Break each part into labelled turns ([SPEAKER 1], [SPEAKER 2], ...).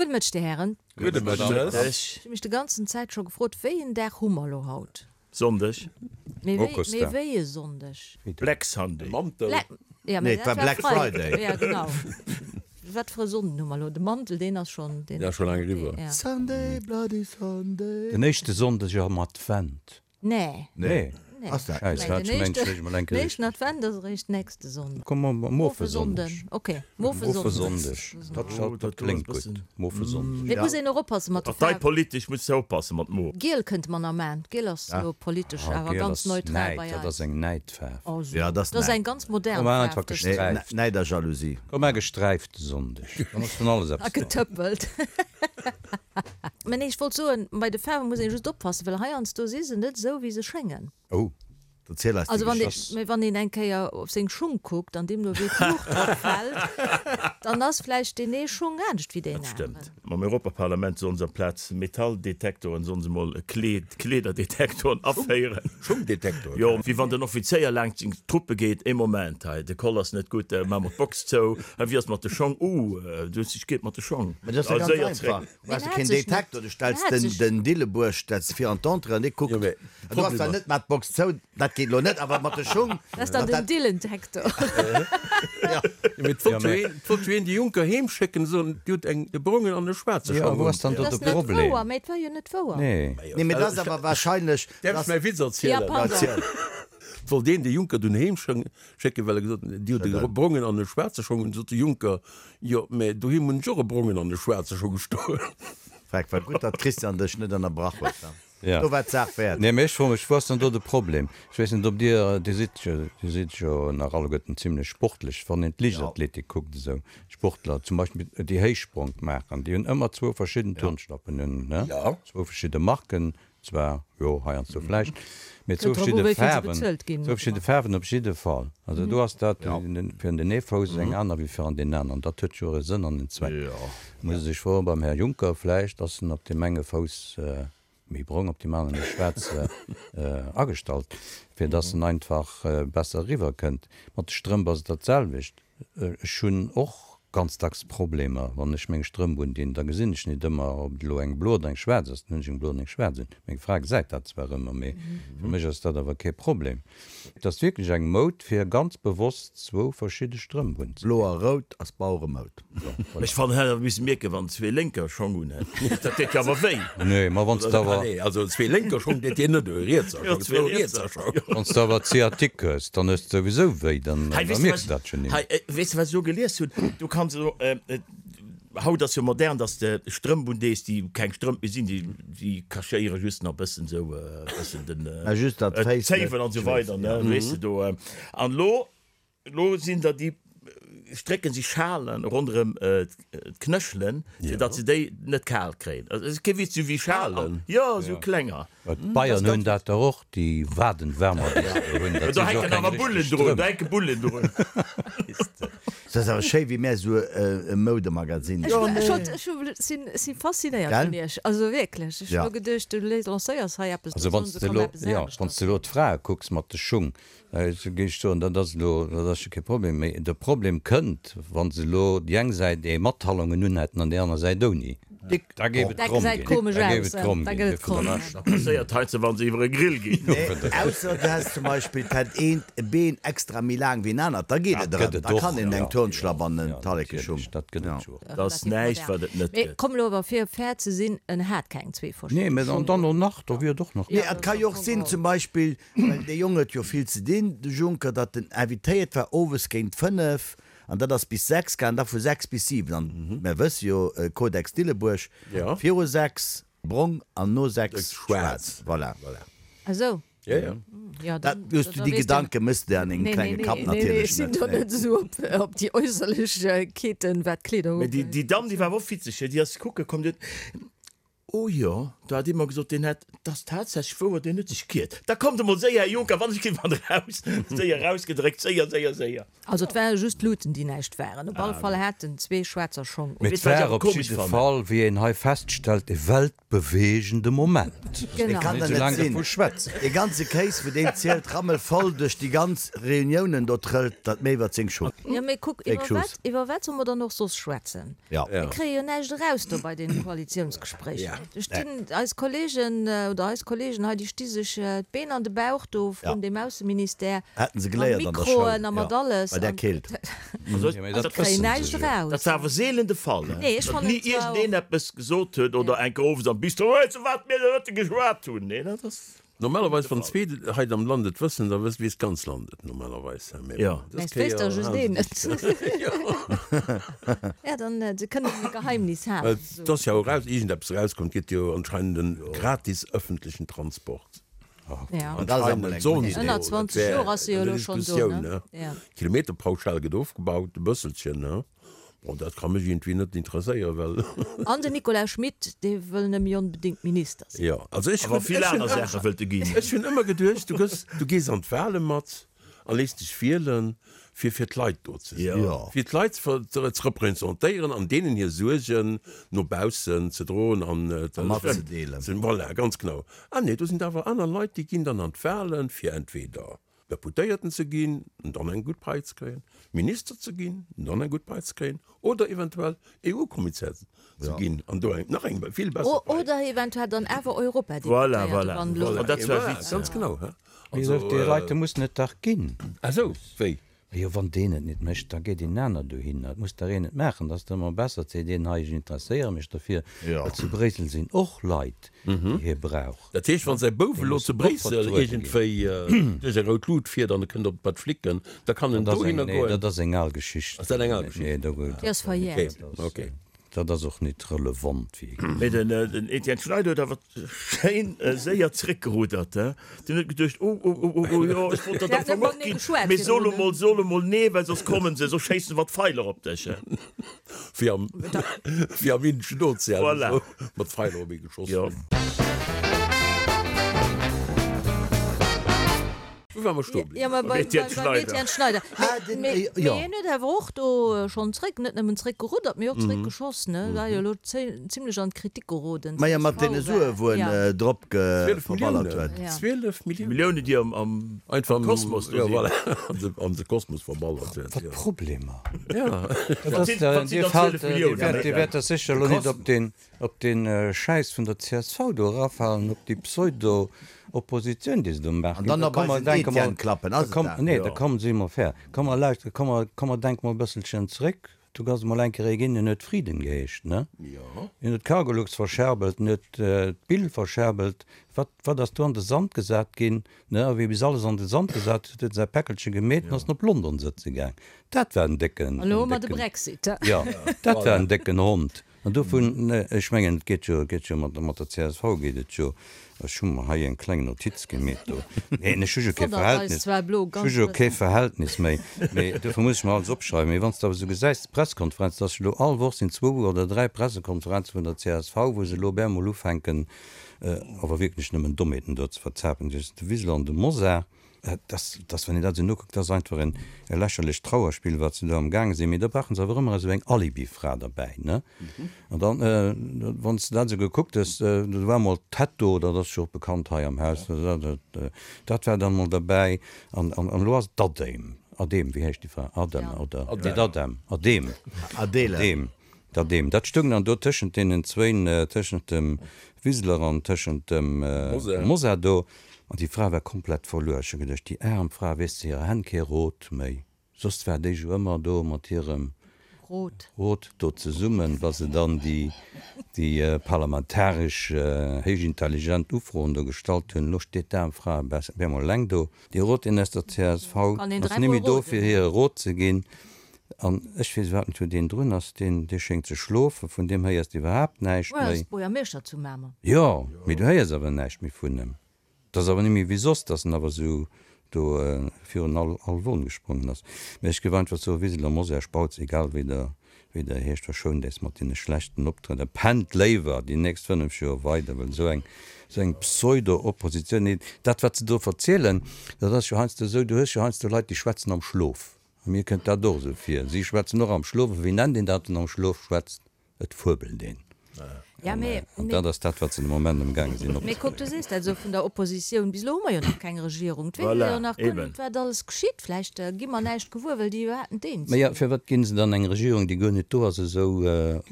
[SPEAKER 1] Gudde Mëtteg, Dir Hären.
[SPEAKER 2] Gudde Mëtteg.
[SPEAKER 1] Ech hu mech de ganzen Zäit scho gefrot, wéi en Dag hu mer elo haut?
[SPEAKER 2] Sonndeg.
[SPEAKER 1] Mee wéi, mee wéi e Sonndeg?
[SPEAKER 2] Black Sunday.
[SPEAKER 3] Mantel.
[SPEAKER 1] Black, ja, mee
[SPEAKER 4] Nee, et
[SPEAKER 1] dat
[SPEAKER 4] war
[SPEAKER 1] war
[SPEAKER 4] Black
[SPEAKER 1] Freiden.
[SPEAKER 4] Friday.
[SPEAKER 1] Ja, genau. Wat fir e Sonnden hu mer elo? De Mantel, deen ass schonn, deen.
[SPEAKER 3] Ja, scho laang eriwwer.
[SPEAKER 1] Ja.
[SPEAKER 4] Sunday, bloody Sunday.
[SPEAKER 5] Den éischte Sonndeg am Advent.
[SPEAKER 1] Nee.
[SPEAKER 5] Nee.
[SPEAKER 1] Nee.
[SPEAKER 4] Ass dat?
[SPEAKER 5] Schäiss, hat ech mengt, ech mol eng
[SPEAKER 1] Den
[SPEAKER 5] Kéier
[SPEAKER 1] éischten Advent ass eréischt nächste Sonnden.
[SPEAKER 5] Komm mer Mofesonndeg.
[SPEAKER 1] Ok, Mofesonndeg.
[SPEAKER 5] Dat, dat kléngt gutt. Mofesonndeg.
[SPEAKER 1] Mee et muss een och oppasse mat de Faarwen.
[SPEAKER 2] Parteipolitesch muss de oppasse mat Mo.
[SPEAKER 1] Giel kënnte mer nach maachen. Giel ass elo politesch awer
[SPEAKER 5] Giel
[SPEAKER 1] ganz
[SPEAKER 5] ass
[SPEAKER 1] neutral
[SPEAKER 5] Näid,
[SPEAKER 1] bei
[SPEAKER 5] dat
[SPEAKER 1] eis.
[SPEAKER 5] ass eng Näidfaarf.
[SPEAKER 1] Oh so.
[SPEAKER 4] Ja, dat ass
[SPEAKER 1] Dat ass
[SPEAKER 4] Näid.
[SPEAKER 1] eng ganz modern
[SPEAKER 5] Komm,
[SPEAKER 1] Faarf.
[SPEAKER 5] einfach
[SPEAKER 1] dës.
[SPEAKER 5] gesträift.
[SPEAKER 4] Näid a Jalousie.
[SPEAKER 5] Komm, mar gesträifte Sonndeg. Dann ass vun alles
[SPEAKER 1] A
[SPEAKER 5] eppes dran.
[SPEAKER 1] getëppelt. Mä nee, ech wollt soen, bei de Faarwe muss een just oppassen, well heiansdo si se net esou, wéi se schéngen.
[SPEAKER 5] Oh.
[SPEAKER 4] Erziel eis déi
[SPEAKER 1] Also wann ee,
[SPEAKER 4] Geschicht.
[SPEAKER 1] mä wann een eng Kéier op seng Schung kuckt an deemno wéi d'Luucht drop fält, dann ass vläicht deen ee Schung anescht wéi deen
[SPEAKER 2] Dat
[SPEAKER 1] aneren.
[SPEAKER 2] stëmmt. Mam Europaparlament sollen se amplaz Metalldetektoren sollen se mol Kleed, Kleederdetektoren aféieren.
[SPEAKER 3] Schungdetektor.
[SPEAKER 2] Jo, wéi wann den Offizéier laangt seng Truppe geet, ee Moment, hei de Koll ass net gutt, maache mer d'Box zou, hei wéi ass mat de Schong, uh, du hues dech geet mat de Schong.
[SPEAKER 4] Mä dat ass jo
[SPEAKER 2] A
[SPEAKER 4] ganz
[SPEAKER 2] séier
[SPEAKER 4] einfach.
[SPEAKER 2] zréck.
[SPEAKER 4] Du brauchs jo keen Detektor, du stells den den Dillebuerg stells de vir an d'Entrée an dee kuckt. Du hast zwar net mat d'Box zou, dat geet lo net, awer mat de Schung.
[SPEAKER 1] Dat ass dann den Dillentektor.
[SPEAKER 3] Mee et wollt jo een, et wollt jo een de Juncker heem schécken, soen, Dir hutt eng e brongen an e schwaarze
[SPEAKER 5] Jo,
[SPEAKER 3] Schong
[SPEAKER 5] wou
[SPEAKER 3] un.
[SPEAKER 5] ass dann do
[SPEAKER 1] Dat
[SPEAKER 5] de
[SPEAKER 1] ass net
[SPEAKER 5] Problem?
[SPEAKER 1] wouer, mee et war jo net wouer.
[SPEAKER 5] Nee.
[SPEAKER 4] Nee, mee dat ass awer wahrscheinlech.
[SPEAKER 3] Däerf ech mäi Witz erzielen?
[SPEAKER 1] Ja, pardon.
[SPEAKER 3] Et wollt een de Juncker dunn heem schécken, well e gesot huet, Dir hutt e brongen an e schwaarze Schong un. Sot de Juncker, Jo, mä doheem hunn ech och e brongen an e schwaarze Schong stoen.
[SPEAKER 4] Freck, war gutt, datt d'Christiane dech net ënnerbrach huet.
[SPEAKER 5] Ja.
[SPEAKER 4] Do war d'Saach wäert.
[SPEAKER 5] Nee, mä ech froe mech, wou ass dann do de Problem? Ech weess net, ob Dir, Dir sidd jo, Dir sidd jo nach alleguerten zimlech sportlech, wann een d'Liichtathletik kuckt, esou Sportler zum Beispill, déi Héichspronk maachen, déi hunn ëmmer zwou verschidden Turnschlappen un, ne? Zwou verschidde Marken, Zwar, jo, heiansdo vläicht, mee zwou verschidde Faarwen, zwou verschidde Faarwen op jidde Fall. Also do ass dat fir an den ee Fouss eng aner wéi fir an deen aneren. Dat huet jo e Sënn an en Zweck. Muss ee sech froen beim Här Juncker, vläicht ass en op deem enge Fouss méi brong, op deem anere méi schwaarz agestallt, fir dass en einfach besser eriwwerkënnt. Mat de Strëmp ass et dat selwecht. Ech hunn och ganz dacks Problemer, wann ech meng Strëmp undinn, da gesinn ech nit ëmmer, ob et elo eng blo oder eng schwaarz ass. Dann hunn ech eng blo an eng schwaarz un. Meng Fra gesäit dat zwar ëmmer, mee fir mech ass dat awer kee Problem. Et ass wierklech eng Moud, fir ganz bewosst zwou verschidde Strëmp unzedinn.
[SPEAKER 4] Blo a rout ass Baueremoud.
[SPEAKER 2] Ech fannen, hätt awer missen mierken, wann zwee Lénker Schong un hätt. Dat deet jo awer wéi.
[SPEAKER 5] Nee, ma wann s de awer.
[SPEAKER 3] Nee, also zwee Lénker Schong deet dir net wéi, rietser Schong, zwou rietser Schong.
[SPEAKER 5] Wann s de awer Sciatique hues, dann hues de souwisou wéi, dann mierks de dat jo nimmer.
[SPEAKER 2] Hei, weess de wat ech elo gelies hunn? Du kanns elo, haut ass jo modern, dass de Strëmp undees, déi keng Strëmp méi sinn, déi, déi cachéiere just nach bëssen esou e bëssen den, d'Zéiwen an esou weider, ne, weess de do. An elo Elo sinn der déi strécken si Schalen ronderëm d'Knëchelen, fir datt se déi net kal kréien. Also et ass kee Witz, sou wéi Schalen, jo sou klenger.
[SPEAKER 5] D'Bayern hunn dat der och, déi Wadenwärmer, déi se do hunn.
[SPEAKER 2] Do hänken awer Bullen drun, do hänke Bullen drun.
[SPEAKER 4] Et ass awer schéi wéi mär esou e Moudemagazin
[SPEAKER 1] sinn. Ech si faszinéiert vun iech, also wierklech. Ech hu geduecht, du lancéiers hei eppes,
[SPEAKER 5] Also wann s de elo, jo, wann s de elo d'Frae kucks mat de Schung, Ech géif soen, dat ass elo, dat ass jo kee Problem. Mee de Problem kënnt, wa se elo déi eng Säit ee mat Talongen unhätten an déi aner Säit ouni. Da géif et kromm ginn. Da géif et kromm ginn. Fir de Rescht.
[SPEAKER 2] Dat passéiert heiansdo, wa se iwwer e Grill ginn.
[SPEAKER 4] Nee, ausser du häss zum Beispill, d'hätt eent e Been extra méi laang wéi en anert, da geet et erëm. Da kann een eng Turnschlapp an en Tallekeschung.
[SPEAKER 5] Dat gëtt et jo.
[SPEAKER 2] Dat ass näischt, wat et net
[SPEAKER 1] Mee
[SPEAKER 2] gëtt.
[SPEAKER 1] komm elo awer, fir fair ze sinn, en hat keng zwee verschidde
[SPEAKER 5] Nee, mee
[SPEAKER 1] Schung.
[SPEAKER 5] dann och nach, do wier et och nach.
[SPEAKER 4] Nee, et ka jo och sinn, zum Beispill, Well dee Jong huet jo vill ze dinn, de Juncker, datt en invitéiert war owes géint 5 an dat ass bis 6 gaangen, da vu 6 bis 7. An mär wësse jo, Codex Dillebuerg, viru 6 brong an no 6 schwaarz. Voilà.
[SPEAKER 1] Ah sou.
[SPEAKER 4] Jo, dat hues du, déi Gedanke mëss de an dengem klenge Kapp natierlech net.
[SPEAKER 1] Nee, nee, ech sinn do net esou op déi Äusserlechkeeten, wat d'Kleeder
[SPEAKER 2] Mä
[SPEAKER 1] ugeet.
[SPEAKER 2] déi Damm, déi war awer och witzeg, déi ass kucke komm, déi huet. Oh jo, do hat ee mer gesot, deen hätt, 't ass tatsächlech wouer, deen huet sech giert. Da kommt emol séier, Här Juncker, wann ech ginn wann eraus, séier erausgedréckt, séier, séier, séier.
[SPEAKER 1] Also et ware just d'Luuten, déi näischt waren. Op alle Fall hat en zwee schwaarzer Schong un.
[SPEAKER 5] Mee et war op jidde Fall, wéi een hei feststellt, e weltbeweegende Moment.
[SPEAKER 4] Dee kann der net sinn. Dee ganze Kéis, wou deen zielt, rammelvoll duerch déi ganz Reuniounen do trëllt, dat méi iwwert seng Schuss.
[SPEAKER 1] Jo, mee kuck, iwwer wat, iwwer wat solle mer dann och soss schwätzen? Mir kréie jo näischt eraus do bei deene Koalitiounsgespréicher. Do stinn eis Kollegen oder eis Kollegen hei, déi sti sech d'Been an de Bauch do vrun deem Ausseministère mat Mikroen a mat alles.
[SPEAKER 4] Bei där Keelt.
[SPEAKER 1] A kréien näischt eraus.
[SPEAKER 2] Dat war awer seelen de Fall, datt ni iergendeen eppes gesot huet oder eng Kéier owes am Bistro, Weess de wat mir de Mëtte geschwat hunn? Nee, dat ass.
[SPEAKER 3] Normalerweis wann zwee hei am Land et wëssen, da wësst weess d'ganz Land et normalerweis. Mee
[SPEAKER 2] Jo.
[SPEAKER 3] bon, dës
[SPEAKER 1] Mä et wéisst
[SPEAKER 3] Kéier
[SPEAKER 1] da just
[SPEAKER 3] halen
[SPEAKER 1] een
[SPEAKER 3] se
[SPEAKER 1] et.
[SPEAKER 3] sech. Jo.
[SPEAKER 1] Ja, dann se kënnen e Geheimnis halen.
[SPEAKER 3] Et ass jo och eraus, iergendeppes erauskomm, et gëtt jo anscheinend en gratis ëffentlechen Transport.
[SPEAKER 1] Ja.
[SPEAKER 4] An dat ass emol eng gutt Idee.
[SPEAKER 1] Ënner 20 Joer ass se jo elo schonn do, ne? Ja.
[SPEAKER 3] D'Kilometerpauschal gëtt ofgebaut, e bësselchen, ne? Bon, dat ka mech iergendwéi net interesséieren, well.
[SPEAKER 1] An den Nicolas Schmit, dee wëll nëmme onbedéngt Minister sinn.
[SPEAKER 3] Jo, also ech
[SPEAKER 2] Awer
[SPEAKER 3] hunn,
[SPEAKER 2] vill
[SPEAKER 3] ech hunn
[SPEAKER 2] aner Saache wëllt e ginn.
[SPEAKER 3] Ech hunn ëmmer geduecht, du gëss, du gees an d'Wale mat a léiss dech wielen, fir fir d'Leit do ze sinn,
[SPEAKER 4] Jo.
[SPEAKER 3] fir d'Leit ze ver, ze representéieren an deenen hir Suergen no baussen ze droen an
[SPEAKER 4] A matzedeelen.
[SPEAKER 3] ze, voilà, ganz genau. Ah nee, do sinn der awer aner Leit, déi ginn dann an d'Walen, fir entweder Deputéierten ze ginn an dann eng gutt Pai ze kréien, Minister ze ginn an dann eng gutt Pai ze kréien oder eventuell EU-Kommissär ze ginn an do eng nach eng vill besser Pai.
[SPEAKER 1] Oder eventuell dann awer Europadeputéierte, wann elo.
[SPEAKER 2] Voilà, dat war Witz.
[SPEAKER 3] Ganz genau.
[SPEAKER 5] Mee déi Leit mussen et dach ginn.
[SPEAKER 3] Ah sou, wéi?
[SPEAKER 5] Jo, wann deen et net mécht, da geet een aner dohinner. Et muss dach een et maachen. Et ass dach ëmmer besser, seet een, hei, ech interesséiere mech derfir, well zu Bréissel sinn och Leit, déi hie brauch.
[SPEAKER 3] Dat heescht, wann säi Bouf
[SPEAKER 5] Dee
[SPEAKER 3] elo
[SPEAKER 5] muss
[SPEAKER 3] zu
[SPEAKER 5] och
[SPEAKER 3] Bréissel
[SPEAKER 5] vertruede ginn.
[SPEAKER 3] iergendwéi duerch eng rout Lut fiert an e kënnt op bei d'Flicken, da kann en
[SPEAKER 5] Dat ass eng,
[SPEAKER 3] dohinner
[SPEAKER 5] nee,
[SPEAKER 3] goen?
[SPEAKER 5] dat ass eng al Geschicht.
[SPEAKER 3] Ass dat eng al Geschicht?
[SPEAKER 5] Nee, do,
[SPEAKER 1] Déi ass verjährt.
[SPEAKER 3] Okay, okay.
[SPEAKER 5] Dat ass och nit relevant, wéi ee
[SPEAKER 2] Mee den Etienne Schneider huet awer schéin séier zréckgerudert. Deen huet geduecht, Oh, oh, oh, oh, oh, jo, ech wollt dat am Fong och ginn, mee so lo mol, so lo mol nee, well soss kommen se, soss schéissen se mat Pfeiler op dech.
[SPEAKER 3] Wéi am, wéi am Indeschen Ozean,
[SPEAKER 2] Voilà.
[SPEAKER 3] esou mat Pfeiler op ee geschoss
[SPEAKER 2] Jo.
[SPEAKER 3] ginn. Wou ware mer stoe bliwwen?
[SPEAKER 1] Jo, mä
[SPEAKER 2] Beim Etienne
[SPEAKER 1] beim Etienne Schneider.
[SPEAKER 4] Ah, den,
[SPEAKER 1] Mee
[SPEAKER 4] jo.
[SPEAKER 1] hien huet awer och do schonn zréck, net nëmmen zréck geruddert, mee och zréck geschoss, ne? War jo elo zimlech an d'Kritik geroden.
[SPEAKER 4] Majo, mat deene Sue wou en drop
[SPEAKER 3] 12
[SPEAKER 4] verballert
[SPEAKER 3] Milliounen.
[SPEAKER 4] huet.
[SPEAKER 1] Ja.
[SPEAKER 3] 12 Milliounen.
[SPEAKER 2] Milliounen, déi am, am
[SPEAKER 3] Einfach am
[SPEAKER 2] Kosmos do
[SPEAKER 3] jo,
[SPEAKER 2] sinn.
[SPEAKER 3] voilà, an de Kosmos verballert huet.
[SPEAKER 5] Wat
[SPEAKER 3] Jo.
[SPEAKER 5] Problemer.
[SPEAKER 3] Ja.
[SPEAKER 5] Dat
[SPEAKER 2] Wat
[SPEAKER 5] ass
[SPEAKER 2] sinn,
[SPEAKER 5] der,
[SPEAKER 2] wat sinn
[SPEAKER 5] Dir
[SPEAKER 2] dann
[SPEAKER 5] faalt,
[SPEAKER 2] 12
[SPEAKER 5] Dir
[SPEAKER 2] Milliounen?
[SPEAKER 5] wäert, Dir wäert der sécher elo net op deen, op deen Schäiss vun der csv do erafalen, op déi Pseudo-Oppositioun, déi se do maachen.
[SPEAKER 4] An dann
[SPEAKER 5] Da
[SPEAKER 4] nach
[SPEAKER 5] komm
[SPEAKER 4] bei
[SPEAKER 5] mer
[SPEAKER 4] den
[SPEAKER 5] denke mol,
[SPEAKER 4] Etienne klappen,
[SPEAKER 5] da
[SPEAKER 4] ass et
[SPEAKER 5] komm,
[SPEAKER 4] dat?
[SPEAKER 5] nee, da komm, si mer fair, komm mer lauschteren, komm mer, komm mer denke mol e bësselchen zréck. Do ass emol eng Kéier ee ginn, deen huet Frieden geheescht, ne? Deen huet d'Cargolux verscherbelt, deen huet d'Bill verscherbelt. Wat, wat ass do an de Sand gesat ginn, ne? A wéi bis alles an de Sand gesat huet, huet en säi Päckelche gemeet an ass en op London sëtze gaang. Dat war en décken,
[SPEAKER 1] An elo
[SPEAKER 5] en
[SPEAKER 1] hu mer de
[SPEAKER 5] décken,
[SPEAKER 1] Brexit.
[SPEAKER 5] jo, dat war en décken Hond. An dovun, ech mengen, et geet jo, et geet jo mat, mat der csv geet et jo, ech hu mer hei eng kleng Notiz gemeet do, neen, ech hu jo kee
[SPEAKER 1] Wonnert eis
[SPEAKER 5] Verhältnis,
[SPEAKER 1] zwar elo
[SPEAKER 5] ech hu
[SPEAKER 1] ganz
[SPEAKER 5] jo kee
[SPEAKER 1] bëssen.
[SPEAKER 5] Verhältnis méi, mee dofir muss ech mer alles opschreiwen. Mee wann s de awer esou gesäis, d'Pressekonferenz, dass elo all Woch sinn zwou oder dräi Pressekonferenze vun der csv, wou se elo op eemol ufänken, awer wierklech nëmmen Dommheeten do ze verzapen, de Wiseler an de Mosar. Dass, dass, wann een dat esou nokuckt, dat ass einfach en e lächerlecht Trauerspill, wat se do amgaange sinn. Mee da brauche se awer ëmmer esou eng Alibifra derbäi, ne? An dann, wann s de dat esou gekuckt hues, do war emol d'Hetto, dat ass jo och bekannt hei am Haus, dat war dann emol derbäi. An, an, an elo ass et d'Adem, Adem, wéi heescht déi Fra? Adem oder? Nee, d'Adem, Adem.
[SPEAKER 4] Adele.
[SPEAKER 5] Adem. Dat deem. Dat stoung dann do tëschent deenen zwéin, tëschent dem Wiseler an tëschent dem Mosar do. An déi Fra war komplett verluer. Ech hu geduecht, déi aarm Fra, weess ze hirer Hänn kee Rot méi. Soss war déi jo ëmmer do mat hirem
[SPEAKER 1] Rot.
[SPEAKER 5] Rot do zesummen, wa se dann déi, déi parlamentaresch héichintelligent Ufroen do gestallt hunn. Elo steet d'aarm Fra op eemol eleng do. Dee Rot, deen aus der csv
[SPEAKER 1] Kann een
[SPEAKER 5] ass
[SPEAKER 1] dräimol
[SPEAKER 5] némme do,
[SPEAKER 1] roden.
[SPEAKER 5] fir hir e Rot ze ginn. An ech weess iwwerhaapt net, wou deen drun ass. Deen, dee schéngt ze schlofen. Vun deem héiers de iwwerhaapt näischt
[SPEAKER 1] Well
[SPEAKER 5] méi.
[SPEAKER 1] ass Buergermeeschter zu Mamer.
[SPEAKER 5] Jo, mee du héiers awer näischt méi vun em. Et ass awer net méi wéi soss, dass en awer esou do virun all, all Won gesprongen ass. Mee ech géif einfach soen, Wiseler, Mosär, Spautz, egal wéi der. Wéi der heescht, verschount äis mat deene schlechten Optrëtter, pennt léiwer déi nächst 5 Joer weider, well esou eng, esou eng Pseudo-Oppositioun, nee, dat wat se do verzielen, dat ass jo heiansdo esou, du hues jo heiansdo Leit, déi schwätzen am Schlof, a mir kënnt dat och esou vir, si schwätzen och am Schlof, a wéi nennt een dat, wann am Schlof schwätzt? Et fuebelt een.
[SPEAKER 1] Ja, mee,
[SPEAKER 5] An dat ass dat, wat se de Moment amgaange sinn
[SPEAKER 1] Mee kuck, du
[SPEAKER 5] opzebréngen.
[SPEAKER 1] sees dat esou vun der Oppositioun. Bis elo hu mer jo nach keng Regierung. Et weess ee jo
[SPEAKER 2] Voilà,
[SPEAKER 1] nach guer
[SPEAKER 2] eben.
[SPEAKER 1] net, wat alles geschitt. Vläicht gi mer näischt gewuer, well déi iwwerhaapt net eens
[SPEAKER 5] Mä jo,
[SPEAKER 1] sinn.
[SPEAKER 5] firwat ginn se dann eng Regierung, déi guer net do ass, esou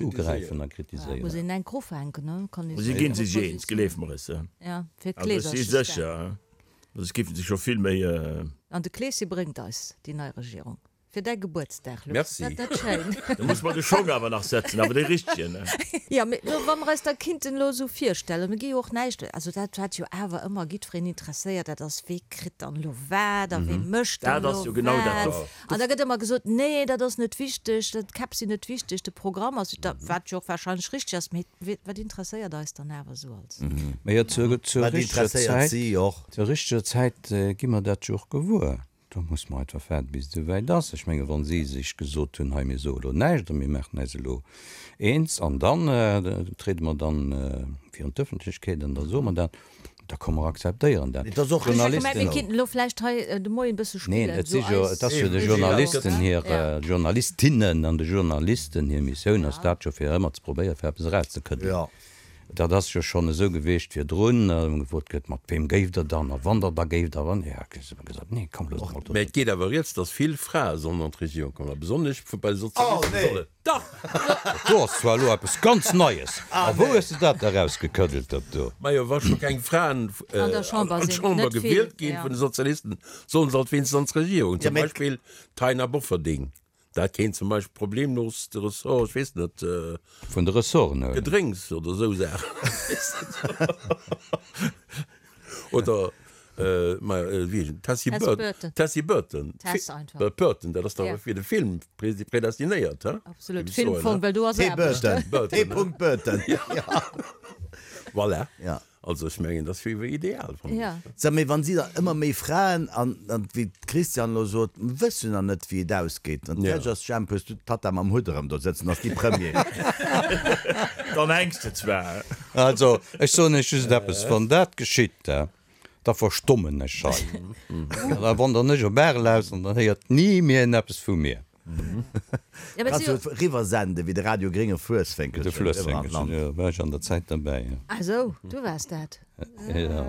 [SPEAKER 5] ugräifen a
[SPEAKER 1] Muss
[SPEAKER 5] kritiséieren?
[SPEAKER 1] een enk ufänken, ne? Kann ee
[SPEAKER 2] Si
[SPEAKER 1] soen.
[SPEAKER 2] ginn sech eens, gleef mer es.
[SPEAKER 1] Ja, fir
[SPEAKER 2] Also ech si
[SPEAKER 1] d'Kleeserches da.
[SPEAKER 2] sécher, soss géife se scho vill méi.
[SPEAKER 1] An de Kleesche bréngt eis déi nei Regierung. Fir däi Gebuertsdag, Luc.
[SPEAKER 3] Merci.
[SPEAKER 1] Ass dat net schéin?
[SPEAKER 2] Da muss mer de Schong awer nach setzen, awer dee richtegen, ne?
[SPEAKER 1] Jo, mee lo, wa mer eis da kinnten elo esou virstellen, mir gi jo och näischt, also dat wat jo awer ëmmer jiddwereen interesséiert, dat ass, wee kritt dann elo wat a wee mécht dann
[SPEAKER 2] Dat ass
[SPEAKER 1] elo
[SPEAKER 2] jo genau dat.
[SPEAKER 1] wat. An da gëtt ëmmer gesot, nee, dat ass net wichteg, d'Käpp sinn net wichteg, de Programm ass, wat jo och warscheinlech richteg ass, mee wat interesséiert eis dann awer esou als.
[SPEAKER 5] Mee jo, zur, zur
[SPEAKER 4] Wat
[SPEAKER 5] richteger
[SPEAKER 4] interesséiert
[SPEAKER 5] Zäit,
[SPEAKER 4] si och?
[SPEAKER 5] zur richteger Zäit gi mer dat jo och gewuer. Do muss mer einfach waarden, bis et esouwäit ass. Ech menge wa si sech gesot hunn, hei mir soe elo näischt a mir maachen äis elo eens an dann triede mer dann virun d'Ëffentlechkeet an da soe mer dat, da komm mer akzeptéieren dat.
[SPEAKER 4] Et ass och
[SPEAKER 1] Ech hat gemengt, mir kinnten elo vläicht hei de Moien e bësse
[SPEAKER 5] Neen,
[SPEAKER 1] spillen,
[SPEAKER 5] et si
[SPEAKER 1] esou
[SPEAKER 5] jo,
[SPEAKER 1] eis
[SPEAKER 5] et ass jo de Journalisten hir, Journalistinnen an de Journalisten hir Missioun ass dat jo fir ëmmer ze probéieren, fir eppes erauszekëddelen. Dat ass jo schonn esou gewiescht virdrun, wou gefrot gëtt, mat weem géift Der dann a wann Der da géift a wann, jo, ech hu gesot, nee, komm, loosst mol do.
[SPEAKER 3] Mä et geet awer rieds, datt vill Frae sollen an d'Regierung kommen, a besonnesch bei de Sozialisten solle. Dach!
[SPEAKER 5] Dat do ass zwar elo eppes ganz Neies. A wou hues de dat da rausgekëddelt, dat do?
[SPEAKER 3] Majo, wa scho keng Fraen
[SPEAKER 1] An der Chamber
[SPEAKER 3] an
[SPEAKER 1] sinn,
[SPEAKER 3] d'Chamber
[SPEAKER 1] net vill,
[SPEAKER 3] gewielt ginn
[SPEAKER 1] jo.
[SPEAKER 3] vun de Sozialisten, sollen se alt wéinstens an d'Regierung.
[SPEAKER 4] Ja,
[SPEAKER 3] Zum
[SPEAKER 4] mä.
[SPEAKER 3] Beispill d'Taina Bofferding. Dat kéint zum Beispill problemlos de Ressort, ech weess net.
[SPEAKER 5] Vun de Ressorten huelen.
[SPEAKER 3] Gedrénks oder esou Saachen. Oder, ma wéi heescht en, Tessy Burton. Tessy Burton.
[SPEAKER 1] Tess einfach.
[SPEAKER 3] Burton, dat ass dach fir de Film predestinéiert, he?
[SPEAKER 1] Absolut, Filmfong, well do ass
[SPEAKER 4] T.
[SPEAKER 1] Aarbecht.
[SPEAKER 4] Burton. T. Burton.
[SPEAKER 3] Voilà.
[SPEAKER 4] Ja.
[SPEAKER 3] Also ech mengen, dat wier ideal, fannen ech.
[SPEAKER 4] Sag, mee wann si der ëmmer méi Fraen, an wéi d'Christiane elo sot, mer wëssen jo nach net wéi et ausgeet, an d'Fäerdeg ass, Jemp, hues du d'Tatta mam Hutt erëm do sëtzen, ass déi Premier.
[SPEAKER 2] Dann hänks de zwar.
[SPEAKER 5] Also, ech soen Iech just eppes, Wann dat geschitt, da verstommen ech hei. An da wandern ech op Arel aus an dann héiert ni méi een eppes vu mir.
[SPEAKER 4] Kanns du riwwer senden, wéi de Radio Grénge Fluessfénkelchen
[SPEAKER 5] De Fluessfénkelchen, jo, war ech an der Zäit derbäi, jo.
[SPEAKER 1] Ah sou, du waars dat.
[SPEAKER 5] Jo.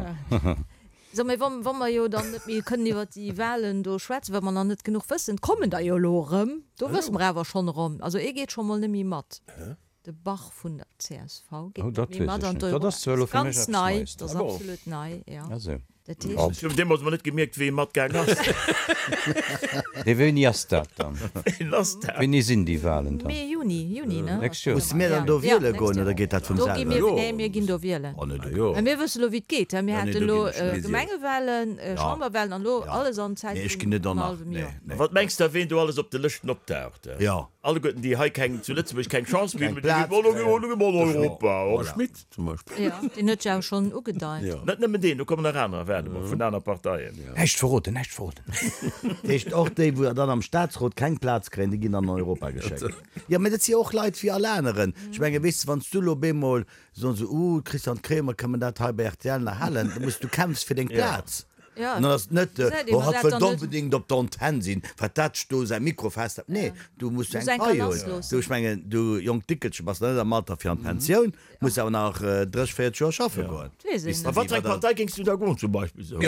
[SPEAKER 1] So, mee wa mer jo dann net méi kënnen iwwer déi Wahlen do schwätzen, well mer nach net genuch wëssen, kommen der jo elo erëm, do wësse mer awer schonn erëm, also ee geet scho mol net méi mat, de Bach vun der csv geet
[SPEAKER 5] Oh,
[SPEAKER 1] net
[SPEAKER 5] dat
[SPEAKER 1] méi
[SPEAKER 5] weess
[SPEAKER 1] mat
[SPEAKER 5] ech
[SPEAKER 1] an
[SPEAKER 5] net.
[SPEAKER 1] d'Euro.
[SPEAKER 5] Dat ass zwar elo fir mech
[SPEAKER 1] Ganz
[SPEAKER 5] eppes
[SPEAKER 1] nei,
[SPEAKER 5] Neies.
[SPEAKER 1] dat ass
[SPEAKER 3] Ah bon.
[SPEAKER 1] absolut nei, jo.
[SPEAKER 5] Ah sou.
[SPEAKER 1] Dat heescht.
[SPEAKER 2] Ech hunn deemools mol net gemierkt, wéi e matgaang ass.
[SPEAKER 5] Nee, wéini ass dat dann?
[SPEAKER 2] Wéini ass dat?
[SPEAKER 5] Wéini sinn déi Wahlen dann?
[SPEAKER 1] Mee, Juni, Juni, ne?
[SPEAKER 5] Nächst Joer.
[SPEAKER 4] Musse mir dann do wiele goen oder geet dat vum
[SPEAKER 1] Do gi
[SPEAKER 4] selwer?
[SPEAKER 1] mir, nee, mir ginn do wielen.
[SPEAKER 4] Oh nee, do
[SPEAKER 3] Ah jo.
[SPEAKER 1] Mä mir wësse lo, wéi et geet, he. Mir
[SPEAKER 4] Ja, nee,
[SPEAKER 1] hate
[SPEAKER 4] do
[SPEAKER 1] lo
[SPEAKER 4] ginn ech net.
[SPEAKER 1] Gemengewahlen, Chamberwahlen an lo alles an Zäit
[SPEAKER 4] Nee, ech
[SPEAKER 1] vun
[SPEAKER 4] ginn net
[SPEAKER 1] engem
[SPEAKER 4] an
[SPEAKER 1] hallwem
[SPEAKER 4] nee,
[SPEAKER 1] Joer.
[SPEAKER 4] nee.
[SPEAKER 2] Wat mengs de, ween do alles op de Lëschten opdaucht?
[SPEAKER 4] Jo.
[SPEAKER 2] Alleguerten déi hei keng, zu Lëtzebuerg keng Chance méi
[SPEAKER 4] Keng
[SPEAKER 2] hunn,
[SPEAKER 4] Plaz
[SPEAKER 2] déi ginn,
[SPEAKER 4] kréien.
[SPEAKER 2] oh, do gi mer an Europa.
[SPEAKER 3] De Schmit zum Beispill.
[SPEAKER 1] Jo, deen huet jo awer schonn ugedeit.
[SPEAKER 3] Jo.
[SPEAKER 2] Net nëmmen deen, do kommen nach anerer, waarde mol, vun aner Parteien.
[SPEAKER 5] Näischt verroden, näischt verroden.
[SPEAKER 4] Dat heescht, och déi, wou dann am Staatsrot keng Plaz kréien, déi ginn dann an Europa geschéckt. Jo, mä dat si jo och Leit wéi all aneren. Ech menge, weess de, wann s du elo op eemol soen se, Uh, Christian Kremer, kënnen mer dat hei bei rtl nach halen? Da muss du kämpfs fir deng Plaz.
[SPEAKER 1] Ja,
[SPEAKER 4] An dann ass et net,
[SPEAKER 1] Gesäit een,
[SPEAKER 4] oh,
[SPEAKER 1] ma
[SPEAKER 4] hatt
[SPEAKER 1] dat
[SPEAKER 4] wëllt
[SPEAKER 1] dann net.
[SPEAKER 4] onbedéngt op der Antenn sinn, wat dat do säi Mikro festhält. Nee, du muss
[SPEAKER 1] Muss
[SPEAKER 4] eng
[SPEAKER 1] eng
[SPEAKER 4] Pai
[SPEAKER 1] Kanass
[SPEAKER 4] hunn. Du,
[SPEAKER 1] loossen.
[SPEAKER 4] ech mengen, du jonkt Dickelche bass nach net am Alter fir an d'Pensioun, muss awer nach 30, 40 Joer schaffe goen.
[SPEAKER 1] Weess een
[SPEAKER 4] Bis
[SPEAKER 1] net.
[SPEAKER 2] A wat fir eng Partei géings du da goen zum Beispill? Sou?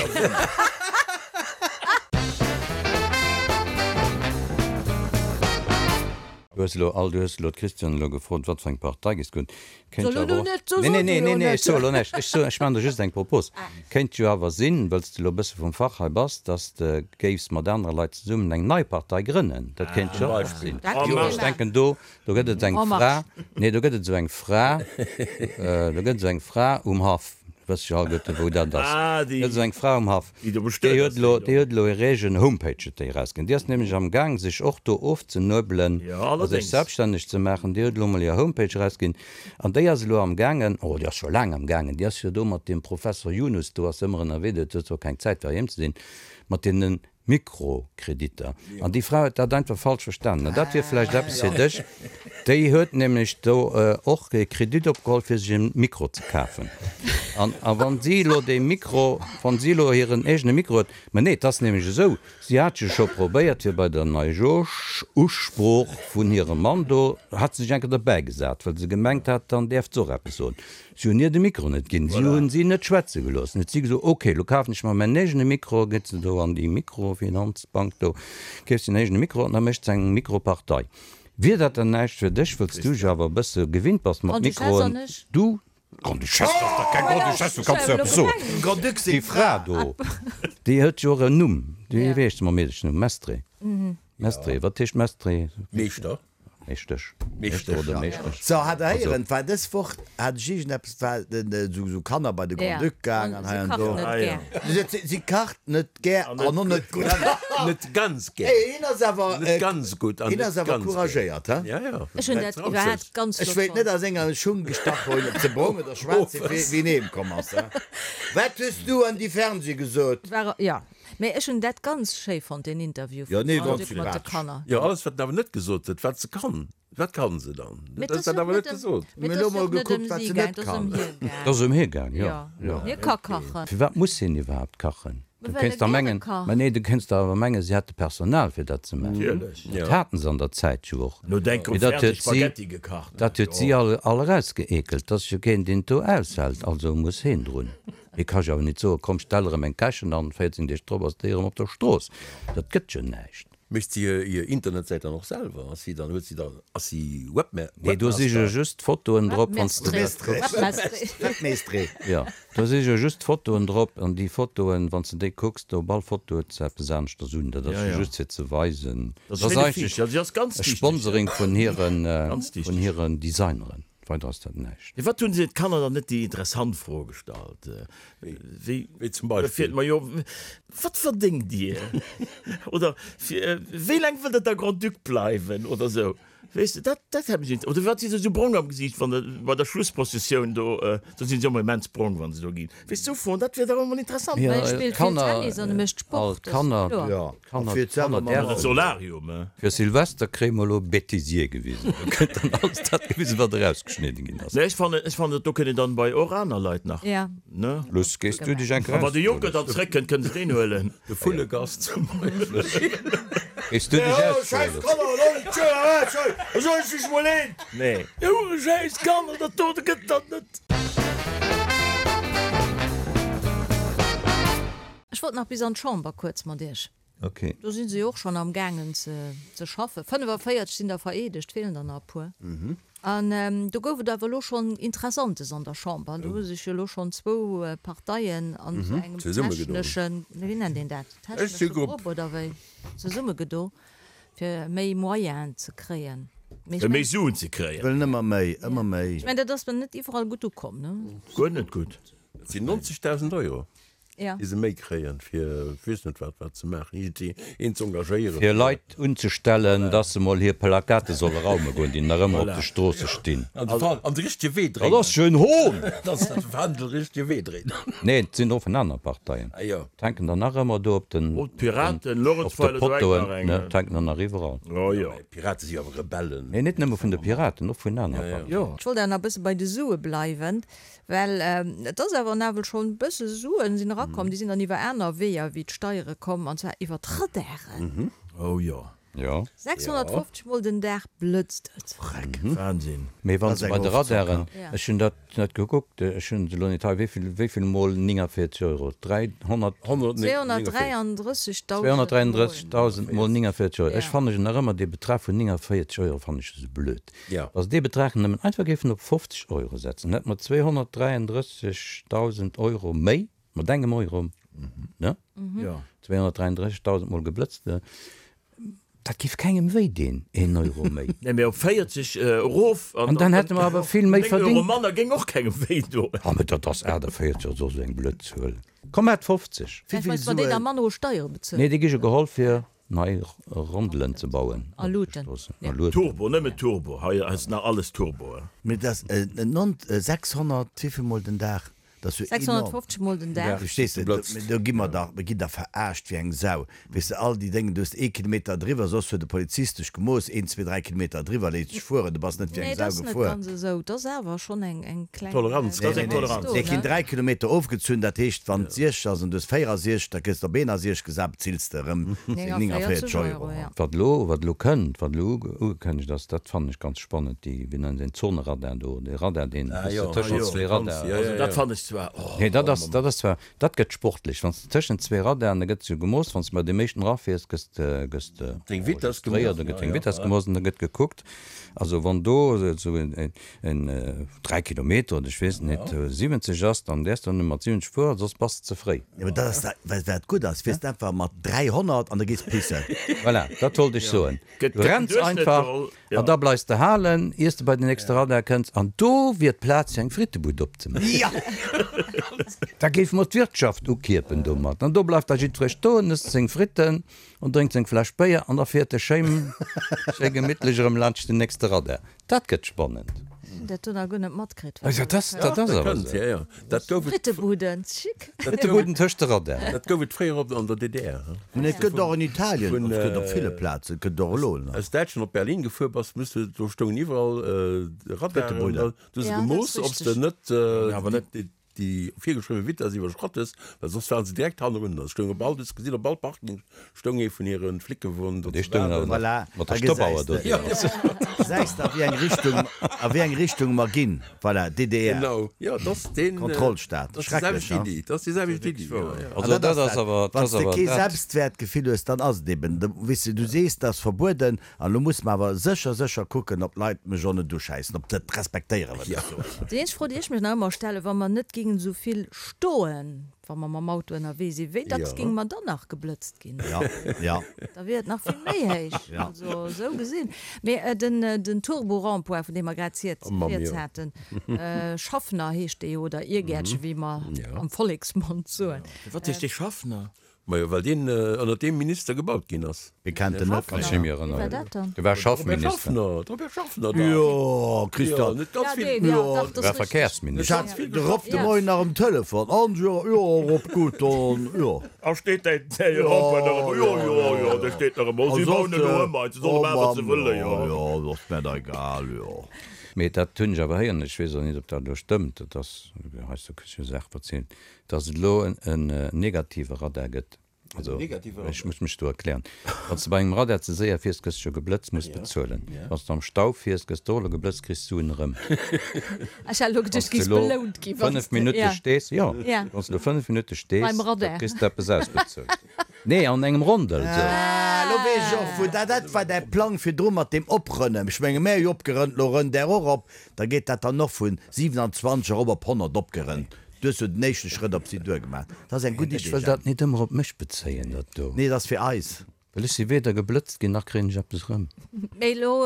[SPEAKER 5] Du hues elo all, du hues elo d'Christiane elo gefrot, wat fir eng Partei géings goen. Kéint
[SPEAKER 1] Soll
[SPEAKER 5] jo
[SPEAKER 1] elo
[SPEAKER 5] awer och.
[SPEAKER 1] net, so
[SPEAKER 5] Nee, nee,
[SPEAKER 1] soll du
[SPEAKER 5] nee,
[SPEAKER 1] elo
[SPEAKER 5] nee, nee,
[SPEAKER 1] net.
[SPEAKER 5] ech soe elo näischt. Ech soen, ech maachen der just eng Propos. Kéint jo awer sinn, wëll s de elo e bësse vum Fach hei bass, dass de géifs mat anere Leit zesummen eng nei Partei grënnen. Dat kéint jo och sinn.
[SPEAKER 1] Dat kéint
[SPEAKER 5] Jo,
[SPEAKER 1] ee
[SPEAKER 5] ech
[SPEAKER 1] maachen.
[SPEAKER 5] denken do, do gëtt et eng
[SPEAKER 1] En
[SPEAKER 5] Fra,
[SPEAKER 1] marche.
[SPEAKER 5] nee, do gëtt et esou eng Fra, do gëtt esou eng Fra um Haff. Wëss jo alleguerte wou dat ass.
[SPEAKER 2] Ah, déi.
[SPEAKER 5] Gëtt esou eng Fra um Haff.
[SPEAKER 2] Déi do bestuet
[SPEAKER 5] Déi huet
[SPEAKER 2] ass,
[SPEAKER 5] elo,
[SPEAKER 2] déi do.
[SPEAKER 5] déi huet elo hir eegen Homepage huet déi erausginn. Déi ass nämlech am Gaang sech och do ofzenuebelen
[SPEAKER 2] Jo,
[SPEAKER 5] a sech
[SPEAKER 2] allerdéngs.
[SPEAKER 5] selbststänneg ze maachen. Déi huet elo mol hir Homepage erausginn an déi ass elo am gaangen, oh déi ass scho laang am gaangen, déi ass jo do mat deem Professor Yunus do ass ëmmer ënnerwee, déi huet zwar keng Zäit fir heiheem ze sinn, mat deenen. Mikrokreditter. An déi Fra huet dat einfach falsch verstanen. An dat wier vläicht eppes fir dech. Déi huet nämlech do och e Kredit opgeholl, fir sech e Mikro ze kafen. An a wann si elo dee Mikro, wann si elo hiren eegene Mikro huet, mä nee, et ass nämlech esou, si hat jo scho probéiert, fir bei der Neijooschusprooch vun hirem Mann do, hat se sech eng Kéier derbäigesat, well se gemengt hat, dann däerft se och eppes soen. Si hunn hir de Mikro net ginn, si hunn si net schwätze gelooss. Dann huet si gesot, ok, elo kafen ech mer mäin eegene Mikro. Geet se do an déi Mikrofinanzbank do, keeft se en eegene Mikro an da mécht se eng Mikropartei. Wier dat dann näischt fir dech, wëlls du jo awer e bësse gewinnt bass mat Mikroen? Du? Grande-Duchesse, dat ass dach keng Grande-Duchesse, wou kanns du eppes soen? Déi Fra do, déi huet jo och en Numm, déi, wéi heescht se mam Meedechenumm? Mestre? Mestre, wat heescht Mestre?
[SPEAKER 3] Meeschter.
[SPEAKER 5] Meeschtesch. Meeschter oder Meeschtesch.
[SPEAKER 4] So, hat der héieren, war dës Woch, hat ech iergendeppes, war den, esou, esou Kanner bei de Grand-Duc gaang an hei an do. Si, si kacht net gär an och net gutt.
[SPEAKER 3] Net ganz gär.
[SPEAKER 4] Hey, hien ass awer,
[SPEAKER 3] Net ganz gutt an
[SPEAKER 4] hien
[SPEAKER 3] net
[SPEAKER 4] ass awer
[SPEAKER 3] ganz gär.
[SPEAKER 4] couragéiert, he?
[SPEAKER 3] Ja, ja.
[SPEAKER 1] Ech hunn dat iwwerhaapt ganz
[SPEAKER 4] Ech
[SPEAKER 1] flott
[SPEAKER 4] wéilt net
[SPEAKER 1] fonnt.
[SPEAKER 4] a senger Schung gestach hunn, ob se brong oder schwaarz sinn, wéi, wéi en heem komm ass, he? Wat hues du an déi Fernseh gesot?
[SPEAKER 1] War, ja. Mee ech hunn dat ganz schéi fonnt, deen Interview
[SPEAKER 4] Jo,
[SPEAKER 1] vum
[SPEAKER 4] nee,
[SPEAKER 1] Grand
[SPEAKER 4] ganz
[SPEAKER 1] Duc mat de
[SPEAKER 4] sympathesch.
[SPEAKER 1] Kanner.
[SPEAKER 3] Jo, alles wat en awer net gesot huet, wat se kann. Wat kann se dann?
[SPEAKER 1] Mee
[SPEAKER 3] Dat
[SPEAKER 1] et
[SPEAKER 3] ass
[SPEAKER 1] ass
[SPEAKER 3] dat
[SPEAKER 1] jo
[SPEAKER 3] awer
[SPEAKER 1] net
[SPEAKER 3] net
[SPEAKER 1] ëm,
[SPEAKER 3] gesot.
[SPEAKER 1] mee
[SPEAKER 4] Mir
[SPEAKER 1] et
[SPEAKER 4] elo
[SPEAKER 1] ass jo
[SPEAKER 4] mol
[SPEAKER 1] och net ëm
[SPEAKER 4] gekuckt, wat
[SPEAKER 1] si
[SPEAKER 4] se
[SPEAKER 1] gaang,
[SPEAKER 4] net
[SPEAKER 1] et ass ëm
[SPEAKER 4] kann.
[SPEAKER 1] hie
[SPEAKER 5] Et ass
[SPEAKER 1] gaang.
[SPEAKER 5] ëm hie gaang, jo,
[SPEAKER 1] Jo,
[SPEAKER 5] jo.
[SPEAKER 1] hie ka kachen.
[SPEAKER 5] Firwat muss hien iwwerhaapt kachen?
[SPEAKER 1] Mä
[SPEAKER 5] Du
[SPEAKER 1] well
[SPEAKER 5] kéinst
[SPEAKER 1] e
[SPEAKER 5] der
[SPEAKER 1] gäre
[SPEAKER 5] mengen,
[SPEAKER 1] kacht.
[SPEAKER 5] mä nee, du kéinst der awer mengen, si hätte Personal fir dat ze maachen.
[SPEAKER 2] Natierlech.
[SPEAKER 5] Dat haten se an der Zäit jo och.
[SPEAKER 2] No denk
[SPEAKER 5] Mee
[SPEAKER 2] um
[SPEAKER 5] dat
[SPEAKER 2] Fernseh
[SPEAKER 5] huet si,
[SPEAKER 2] Spaghetti gekacht.
[SPEAKER 5] dat huet si all, all erausgeekelt. 't ass jo keen, deen et do aushält, also muss heen drun. Hie ka jo awer nit soen, komm stell erëm eng Kächen an, 14 Deeg drop ass déi erëm op der Strooss. Dat gëtt jo näischt.
[SPEAKER 3] Mécht si hir Internetsäit dann och selwer? Ass si dann, huet si dann, ass si Webma-,
[SPEAKER 5] Nee, do si jo just d'Fotoen drop, wann s de dat kucks.
[SPEAKER 4] Webmeestre.
[SPEAKER 5] Jo, do si jo just d'Fotoen drop an déi Fotoen, wann s de déi kucks, do op all Foto huet se eppes aneschters un. Dat ass jo just fir ze weisen.
[SPEAKER 2] Dat
[SPEAKER 5] Dat ass
[SPEAKER 2] ass
[SPEAKER 5] eigentlech e Sponsoring vun hiren, vun hiren Designeren. Weider ass dat näischt.
[SPEAKER 2] Firwat hunn se d'Kanner dann net déi interessant Fro gestallt, wéi
[SPEAKER 3] Wéi zum Beispill?
[SPEAKER 2] Majo, wat verdéngt Dir? Oder wéi laang wëllt Der da Grand-Duc bleiwen? Oder esou. Weess de, dat, dat hätt mech inter-. Oder firwat si se esou brong am Gesiicht, wann der bei der Schlussprozessioun do, do sinn se ëmmer immens brong, wa se do ginn. Weess de, esou Froen, dat wier dach emol interessant.
[SPEAKER 1] Mä hie spillt vill Tennis an e mécht Sport, dat ass kloer.
[SPEAKER 5] Kanner,
[SPEAKER 4] Fir
[SPEAKER 5] Kanner
[SPEAKER 2] däerfen. Solarium, eh?
[SPEAKER 5] Fir Silvester kréie mer elo Bêtisier gewisen. Do gëtt dann alles dat gewisen, wat erausgeschnidden ginn ass.
[SPEAKER 2] Nee, ech fannen, ech fannen, do kënnen dann bei och aner Leit nach,
[SPEAKER 1] Ja.
[SPEAKER 2] ne?
[SPEAKER 5] Luss, gees du dech eng
[SPEAKER 2] A wann de Juncker dann zréckkënnt, kënnen se deen huelen.
[SPEAKER 3] De Vullegast zum Beispill.
[SPEAKER 5] Gees du dech ausruhe, Luss?
[SPEAKER 2] Nee. Schäiss Kanner, dat do gëtt dat net.
[SPEAKER 1] Ech wollt nach bis an d'Chamber kuerz mat Iech.
[SPEAKER 5] Ok.
[SPEAKER 1] Do si se jo och schonn am gaangen ze schaffen. 45 sinn der vereedegt, feelen der nach e puer. An do gouf et awer elo schonn Interessantes an der Chamber. Do hu sech jo elo schonn zwou Parteien an esou engem techneschen, wéi nennt een dat, technesche Grupp oder wéi, zesummegedo, fir méi Moyenen ze kréien.
[SPEAKER 2] Fir méi Suen ze kréien.
[SPEAKER 4] Wëllen ëmmer méi, ëmmer méi.
[SPEAKER 1] Ech mengen, dat ass net iwwerall gutt ukomm, ne?
[SPEAKER 2] Guer net gutt.
[SPEAKER 3] Dat sinn 90.000 Euro.
[SPEAKER 1] Ja.
[SPEAKER 3] Déi se méi kréien, fir ech weess net wat wat ze maachen, iergendwéi een ze engagéieren.
[SPEAKER 5] Fir Leit unzestellen, dass se mol hir Plakate solle raume goen, déi nach ëmmer op de Stroosse stinn.
[SPEAKER 3] An de Fa an de richtege Wee dréinen.
[SPEAKER 5] Dat ass jo en Hohn!
[SPEAKER 3] Dass se de Fändel richtege Wee dréinen.
[SPEAKER 5] Nee, et sinn och vun aner Parteien.
[SPEAKER 3] Ah jo.
[SPEAKER 5] Et hänken der nach ëmmer do op den,
[SPEAKER 2] Oh, d'Piraten,
[SPEAKER 5] op de
[SPEAKER 2] Lorentzweiler, do hänkt nach
[SPEAKER 5] Pottoen,
[SPEAKER 2] eng.
[SPEAKER 5] ne, et hänken der nach iwwerall.
[SPEAKER 2] Oh jo.
[SPEAKER 3] Mä d'Pirate si jo awer Rebellen.
[SPEAKER 5] Nee, net nëmme vun de Piraten, och vun aner Parteien.
[SPEAKER 2] Jo.
[SPEAKER 1] Ech wollt awer nach e bësse bei de Sue bleiwen. Well et ass awer nawell schonn e bësse Suen sinn erakomm, déi sinn dann iwwer aner Weeër wéi d'Steiere komm, an zwar iwwer d'Radaren.
[SPEAKER 2] Oh jo.
[SPEAKER 5] Jo.
[SPEAKER 1] 650 mol den Dag blëtzt et.
[SPEAKER 2] Freck. Wahnsinn.
[SPEAKER 5] Mee wann se bei de Radaren, ech hunn dat net gekuckt, ech hunn se elo net hei, wéi vill, wéi vill mol 49 Euro? 300.
[SPEAKER 1] 233.000 mol.
[SPEAKER 5] 233.000 mol 49 Euro. Ech fannen nach ëmmer dee Betrag vun 49 Euro fannen ech esou blöd. Wa se dee Betrag nëmmen einfach géifen op 50 Euro setzen, hätte mer 233.000 Euro méi, mat engem Euro, ne? 233.000 mol geblëtzt, dat géif kengem wéi deen een Euro méi.
[SPEAKER 2] Nee, mee op 40 erof
[SPEAKER 5] an dann hätte mer awer vill méi verdingt.
[SPEAKER 2] 9 Euro manner géing och kengem wéi doen.
[SPEAKER 5] Ah, mee dat ass 48 oder soss eng blöd Zuel. Komm, hat 50.
[SPEAKER 1] Vläicht weist, wa déi da manner u Steiere bezuelen.
[SPEAKER 5] Nee, déi gi jo geholl fir. Nei Rondelen ze bauen.
[SPEAKER 1] A Luuten.
[SPEAKER 5] A Luuten.
[SPEAKER 2] Turbo, nëmmen Turbo, hei ass nach alles Turbo.
[SPEAKER 4] Mee dass 600 wéivill mol den Dag? Dat ass jo enorm.
[SPEAKER 1] 650 mol den Dag.
[SPEAKER 4] Verstees de? Do gi mer dach, mir ginn dach verarscht wéi eng Sau. Weess de, all déi Déngen, du hues ee Kilometer driwwer, soss huet de Polizist dech gemooss, een, zwee, dräi Kilometer driwwer, léisst dech fueren, du bass net wéi
[SPEAKER 1] eng
[SPEAKER 4] Sau
[SPEAKER 1] gefuer. Nee, dat ass net ganz esou. Dat ass awer schonn eng, eng kleng
[SPEAKER 3] Toleranz.
[SPEAKER 4] Dat ass eng Toleranz. Nee, ginn 3 Kilometer ofgezunn, dat heescht, wann et 60 ass an du hues 64, da gëss de op 61 gesat, bezills de erëm seng 49 Euro.
[SPEAKER 5] Wat elo, wat elo kënnt, wat elo ugekënnegt ass, dat fannen ech ganz spannend, déi, wéi nennen se deen, Zoneradar do, dee Radar, deen, wou s de tëschent zwee Radar.
[SPEAKER 2] Also dat fannen ech zwar, oh.
[SPEAKER 5] Nee, dat ass, dat ass zwar, Dat gëtt sportlech. Wann s de tëschent zwee Radaren, da gëtt sou gemooss, wann s de bei deem éischten erafiers, gëss de, gëss de
[SPEAKER 3] Deng Vitess
[SPEAKER 5] enregistréiert, da gëtt deng Vitess gemooss an da gëtt gekuckt. Also wann do esou en, en 3 Kilometer oder ech weess et net, 70 ass, dann däerfs de nëmme mat 70 fueren, soss bass de ze fréi.
[SPEAKER 4] Jo, mä dat ass da, well wat gutt ass, fiers de einfach mat 300 an da gees pissen.
[SPEAKER 5] Voilà, dat wollt ech soen. Du renns einfach an da bleifs de halen, iers de bei den nächste Radar kënns. An do wier d'Plaz fir eng Frittebud opzemaachen. Da géife mer d'Wirtschaft ukierpen domat. An do bleift da jiddweree stoen, ësst seng Fritten an drénkt seng Fläsch Béier an da fiert e schéi gemittlech erëm laanscht den nächste Radar. Dat gëtt spannend.
[SPEAKER 1] Hunn dat do nach guer net matkritt.
[SPEAKER 5] Jo, dat ass awer esou.
[SPEAKER 3] Dat gouf et.
[SPEAKER 1] Frittebuden, chic.
[SPEAKER 5] Frittebuden tëscht de Radaren.
[SPEAKER 3] Dat gouf et fréier op an der DDR.
[SPEAKER 4] Mä et gëtt och an Italien, et gëtt op ville Plazen, et gëtt och elo
[SPEAKER 3] nach. Aus Däitschland op Berlin gefuer bass, muss de, do stoungen iwwerall Radaren, da hu se gemooss, ob s de net déi virgeschriwwe Vitess iwwerschratt hues, well soss waren se direkt hannerun. Da stoung op all, du hues gesinn, op all Parking stoung ee vun hire Flickewon do
[SPEAKER 5] ze
[SPEAKER 3] waarden.
[SPEAKER 4] Voilà,
[SPEAKER 5] mat der Stoppauer do.
[SPEAKER 4] Gesäis de, a wéi eng Richtung, a wéi eng Richtung mer ginn. Voilà, DDR.
[SPEAKER 3] Genau, jo, dat ass deen.
[SPEAKER 4] Kontrollstaat.
[SPEAKER 3] Dat ass déi selwecht Iddi, dat ass déi selwecht Iddi, jo, jo.
[SPEAKER 5] Also dat ass awer, dat
[SPEAKER 4] Wann s
[SPEAKER 5] ass
[SPEAKER 4] de
[SPEAKER 5] awer
[SPEAKER 4] kee
[SPEAKER 5] dat.
[SPEAKER 4] Selbstwäertgefill hues, dann ass et eben, weess de, du sees, dat ass verbueden, An elo muss mer awer sécher, sécher kucken, ob d'Leit mech och net uschäissen, ob se et respektéieren, wat ech soen.
[SPEAKER 1] Déi eenzeg Fro, déi ech mech nach ëmmer stellen, Wa mer net géingen esou vill stoen, wa mer mam Auto ënnerwee sinn, wéi dacks géinge mer dann nach geblëtzt ginn? Da wier et nach vill méi héich, also esou gesinn. Mee den Turbo-Rond-point, vun deem mer grad rieds haten, Schaffner heescht dee jo, oder Irgäertchen, wéi mer am Volleksmond soen.
[SPEAKER 2] Firwat heescht dee Schaffner?
[SPEAKER 3] Majo, well deen ënnert deem Minister gebaut ginn ass.
[SPEAKER 4] Wie kennt en net
[SPEAKER 5] Kann ech méi erënneren. Dee war Schaffminister.
[SPEAKER 3] De Robert Schaffner, de Robert Schaffner,
[SPEAKER 4] Jo, Christian.
[SPEAKER 3] Net ganz vill.
[SPEAKER 4] Jo,
[SPEAKER 5] Dee war Verkehrsminister.
[SPEAKER 4] Ech hat de Rob de Moien nach um Telefon. An, jo, jo, Rob, gutt, dann, jo.
[SPEAKER 2] A steet däi Rond-point nach ëmmer? Jo, jo, jo, dee steet nach ëmmer. Si bauen elo ëm, se solle maachen, wat se wëllen, jo.
[SPEAKER 4] Jo, dat ass mär da egal, jo.
[SPEAKER 5] Mee dat hunn ech awer héieren, ech weess och net, ob dat elo stëmmt, dat ass, heiansdo kriss ech jo Saache verzielt, Dass et elo en negative Radar gëtt. Also, ech muss mech do erklären. Wann s de bei engem Radar ze séier fiers, gëss de jo geblëtzt, muss bezuelen. Wann s de am Stau fiers, gëss de och elo geblëtzt, kriss d'Suen erëm.
[SPEAKER 1] Ech hat elo geduecht, du géifs belount ginn,
[SPEAKER 5] wann s de 5 Minutte stees, jo, wann s de elo 5 Minutte stees, da kriss de eppes ausbezuelt. Nee, an engem Rondel esou.
[SPEAKER 4] Ah, elo weess ech och, wou dat, dat war däi Plang virdru mat deem Oprënnen. Ech menge, mär hu jo opgerënnt, elo rënnt där och op. Da geet dat dann och vun 27 erop op 100 opgerënnt. Du hues jo den éischte Schrëtt op si duer gemaach. Dat ass eng gutt
[SPEAKER 5] Ech
[SPEAKER 4] Idee,
[SPEAKER 5] wëll
[SPEAKER 4] Jemp.
[SPEAKER 5] dat nit ëmmer op mech bezéien, dat do.
[SPEAKER 4] Nee, et ass fir eis.
[SPEAKER 5] Well ech si weder geblëtzt ginn, nach kréien ech eppes erëm.
[SPEAKER 1] Mee elo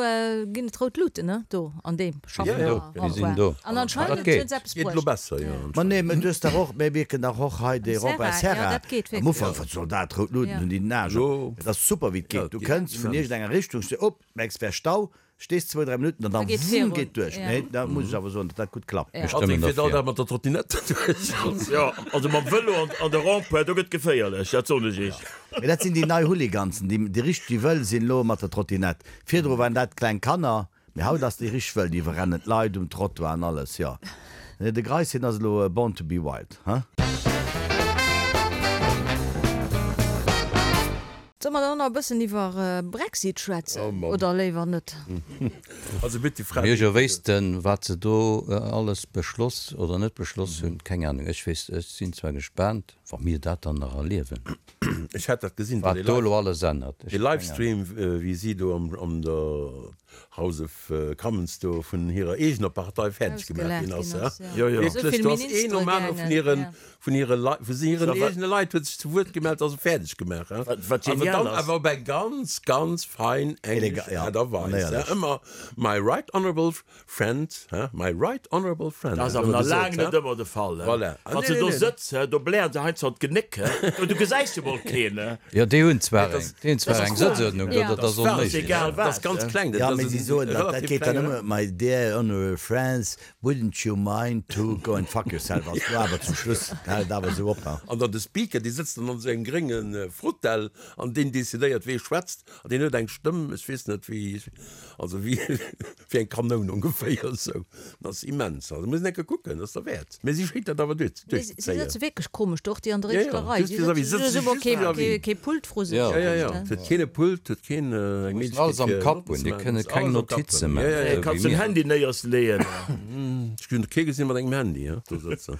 [SPEAKER 1] ginn et rout Luuten, ne, do an deem
[SPEAKER 5] Déi sinn do, déi sinn do.
[SPEAKER 1] An anscheinend
[SPEAKER 5] Dat geet.
[SPEAKER 1] huet se eppes
[SPEAKER 3] Geet elo
[SPEAKER 1] bruecht.
[SPEAKER 3] besser, jo,
[SPEAKER 4] Ma
[SPEAKER 3] anscheinend.
[SPEAKER 4] nee, mä du hues dach och, mä mir kennen dach och hei dee
[SPEAKER 1] Serra,
[SPEAKER 4] Robert
[SPEAKER 1] jo,
[SPEAKER 4] Serra.
[SPEAKER 1] dat geet
[SPEAKER 4] Am
[SPEAKER 1] wierklech.
[SPEAKER 4] Ufank, wat soll dat, rout Luuten
[SPEAKER 1] Ja.
[SPEAKER 4] hunn déi den Aarsch op.
[SPEAKER 3] Elo.
[SPEAKER 4] Et ass super, wéi et
[SPEAKER 3] Ja,
[SPEAKER 4] geet.
[SPEAKER 3] et
[SPEAKER 4] Du
[SPEAKER 3] geet
[SPEAKER 4] kënns vun
[SPEAKER 3] immens.
[SPEAKER 4] iergendenger Richtung, stee op, merks, wär Stau, Stees zwou, dräi Minutten an
[SPEAKER 1] Da
[SPEAKER 4] dann
[SPEAKER 1] geet
[SPEAKER 4] wumm
[SPEAKER 1] virun.
[SPEAKER 4] geet duerch.
[SPEAKER 1] Ja.
[SPEAKER 4] Nee, da muss ech awer soen, datt dat gutt klappt.
[SPEAKER 1] Ja.
[SPEAKER 5] Mir
[SPEAKER 3] Also
[SPEAKER 5] stëmmen
[SPEAKER 3] ech fiert all
[SPEAKER 5] derfir.
[SPEAKER 3] Dag mat der Trottinette duerch.
[SPEAKER 2] Jo, also mam Vëlo an an de Rond-point, do gëtt geféierlech, dat soen ech iech.
[SPEAKER 4] Mee dat sinn déi nei Hooligansen, déi déi richteg wëll sinn elo mat der Trottinette. Virdru waren dat kleng Kanner, mee haut ass déi richteg wëll, déi iwwerrennen d'Leit um Trottoir an alles, jo. Nee, de Greis, hien ass elo born to be wild, hein?
[SPEAKER 1] Solle mer dann och nach e bëssen iwwer Brexit schwätzen oder léiwer net?
[SPEAKER 3] Also bitt déi Fra.
[SPEAKER 5] Mir jo wéissten, wat se do alles beschloss oder net beschloss hunn, keng Ahnung. Ech weess, ech sinn zwar gespaant, wa mir dat dann nach erliewen,
[SPEAKER 3] Ech hat dat gesinn,
[SPEAKER 5] wat do elo alles ännert.
[SPEAKER 3] Dee Livestream, wéi si do an der House of Commons do vun hirer eegener Partei fäerdeg gemaach ginn ass. Wierklech, do ass een nom anere vun hiren Vun hire Leit, vu hiren eegene Leit huet sech zu Wuert gemellt a se fäerdeg gemaach.
[SPEAKER 2] Wat, wat
[SPEAKER 3] Awer
[SPEAKER 2] genial
[SPEAKER 3] dann
[SPEAKER 2] ass.
[SPEAKER 3] awer op eng ganz, ganz fein englesch
[SPEAKER 4] Ja,
[SPEAKER 3] Aart a Weis.
[SPEAKER 4] manéierlech.
[SPEAKER 3] Ëmmer my right honourable friend, he, my right honourable friend.
[SPEAKER 2] Dat ass
[SPEAKER 3] huet
[SPEAKER 2] awer
[SPEAKER 3] ëmmer
[SPEAKER 2] nach laang
[SPEAKER 3] gesot,
[SPEAKER 2] net
[SPEAKER 3] he.
[SPEAKER 2] ëmmer de Fall.
[SPEAKER 3] Voilà.
[SPEAKER 2] Wann se do sëtz, he, do blären se heiansdo an d'Genéck, he, du gesäis jo mol keen. keen, ne?
[SPEAKER 5] Jo, déi hunn zwar eng, déi hunn zwar eng Sëtzuerdnung do, dat ass onméiglech.
[SPEAKER 2] Egal
[SPEAKER 3] wat. Dat ass ganz kleng.
[SPEAKER 4] Jo, mee si soen, dat dat geet dann ëmmer, My dear honorable friends, wouldn't you mind to go and fuck yourself ass do awer zum Schluss, hält et awer esou op, ha.
[SPEAKER 3] An dann de Speaker, dee sëtzt dann an esou engem grénge Fotell an deen decidéiert, wee schwätzt. An deen huet eng Stëmm, ech weess net wéi, also wéi wéi eng Kanoun ongeféier esou. Dat ass immens. Also muss een eng Kéier kucken, dat ass derwäert. Mee si schéngt dat awer duerch
[SPEAKER 1] Mee si
[SPEAKER 3] duerchzezéien.
[SPEAKER 1] sëtze wierklech komesch do, och déi an der
[SPEAKER 3] Ja, ja,
[SPEAKER 1] éischter Rei.
[SPEAKER 3] just
[SPEAKER 1] Si
[SPEAKER 3] vis-à-vis,
[SPEAKER 1] sëtzen
[SPEAKER 3] sëtze
[SPEAKER 1] hu
[SPEAKER 3] just
[SPEAKER 1] kee
[SPEAKER 3] vis-à-vis.
[SPEAKER 1] kee Pult vru sech.
[SPEAKER 5] Ja,
[SPEAKER 3] Ja, ja, ja. Huet keen e Pult, huet keen eng
[SPEAKER 5] Mussen alles
[SPEAKER 3] Méiglechkeet
[SPEAKER 5] am
[SPEAKER 3] fir
[SPEAKER 5] Kapp
[SPEAKER 3] Notten
[SPEAKER 5] hunn,
[SPEAKER 3] ze
[SPEAKER 5] déi
[SPEAKER 3] maachen.
[SPEAKER 5] kënne
[SPEAKER 3] Ass
[SPEAKER 5] keng
[SPEAKER 3] alles am Kapp
[SPEAKER 5] Notize
[SPEAKER 3] hunn. Ja,
[SPEAKER 5] maachen,
[SPEAKER 3] ja, ja.
[SPEAKER 5] esou wéi
[SPEAKER 2] Kanns den
[SPEAKER 5] mir.
[SPEAKER 2] Handy néiers leeën.
[SPEAKER 3] Ech hunn kee gesinn mat engem Handy, he, do sëtzen.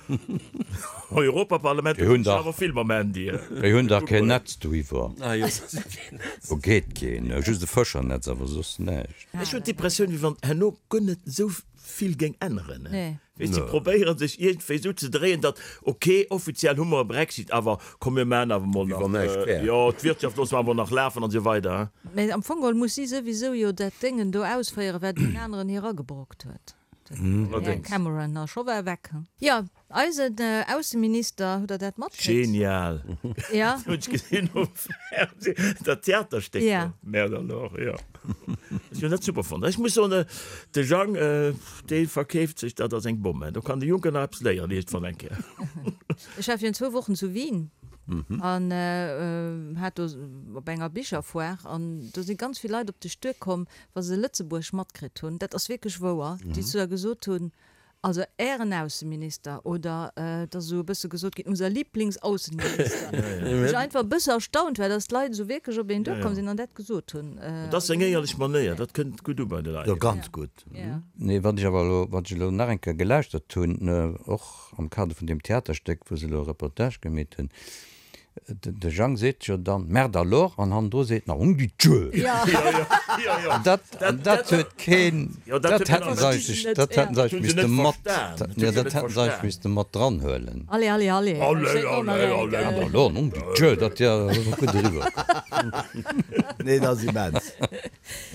[SPEAKER 2] Europaparlament
[SPEAKER 5] Déi hunn
[SPEAKER 2] sinn
[SPEAKER 5] dach,
[SPEAKER 2] awer vill mam Handy.
[SPEAKER 5] déi hunn dach keen Netz doiwwer.
[SPEAKER 3] Ah jo, si hunn keen Netz.
[SPEAKER 5] Do geet keen, just e Fëschernetz, awer soss näischt.
[SPEAKER 2] Ech hunn d'Impressioun, wéi wann herno guer net esou vill géing änneren.
[SPEAKER 1] Nee.
[SPEAKER 2] Weess, si probéiere sech iergendwéi esou ze dréien, datt, ok, offiziell hu mer e Brexit, awer komm mir maachen awer mol
[SPEAKER 3] Wéi
[SPEAKER 2] nach,
[SPEAKER 3] wann näischt wär.
[SPEAKER 2] jo, d'Wirtschaft loosse mer awer nach lafen an esou weider.
[SPEAKER 1] Mä am Fong geholl muss si souwisou jo dat Déngen do ausféieren, wat deen aneren hir agebrockt huet, den Här Cameron. A scho war e weg. Jo, Eisen Ausseminister, hutt der dat matkritt?
[SPEAKER 2] Genial!
[SPEAKER 1] Ja.
[SPEAKER 2] Hunn ech gesinn um Fernseh, dat Theaterstéck do.
[SPEAKER 1] Ja.
[SPEAKER 2] Merde alors, jo. Ech hunn dat super fonnt. Ech muss soen, de Jang, dee verkeeft sech dat als eng Bomm. Do kann de Juncker nach eppes léieren iergendwann eng Kéier.
[SPEAKER 1] Ech war virun zwou Wochen zu Wien an hat do op enger Bicherfoire an do si ganz vill Leit op dech duerkomm, wa se Lëtzebuerg matkritt hunn, dat ass wierklech wouer, déi zu der gesot hunn, Also Ären Ausseminister, oder et ass esou e bësse gesot ginn, unser Lieblingsaußenminister, wou ech einfach e bësse erstaunt war, dass d'Leit esou wierklech op een duerkomm sinn an dat gesot hunn.
[SPEAKER 2] Dat ass seng éierlech Manéier, dat kënnt gutt u bei de Leit.
[SPEAKER 4] Jo, ganz gutt.
[SPEAKER 5] Nee, wat ech awer elo, wat ech elo nach eng Kéier gelauschtert hunn, och am Kader vun deem Theaterstéck, wou se elo e Reportage gemeet hunn, De Jang seet jo dann, Merde alors, an hannendru seet nach, Nom de Dieu! An dat, an dat huet keen, dat hätten se eigentlech, dat hätten se eigentlech misste mat, jo, dat hätten se eigentlech misste mat dran huelen.
[SPEAKER 1] Allez, allez, allez, dat steet och nach eng Kéier.
[SPEAKER 5] Merde alors, nom de Dieu, dat jo gutt eriwwer komm.
[SPEAKER 4] Nee, dat ass immens,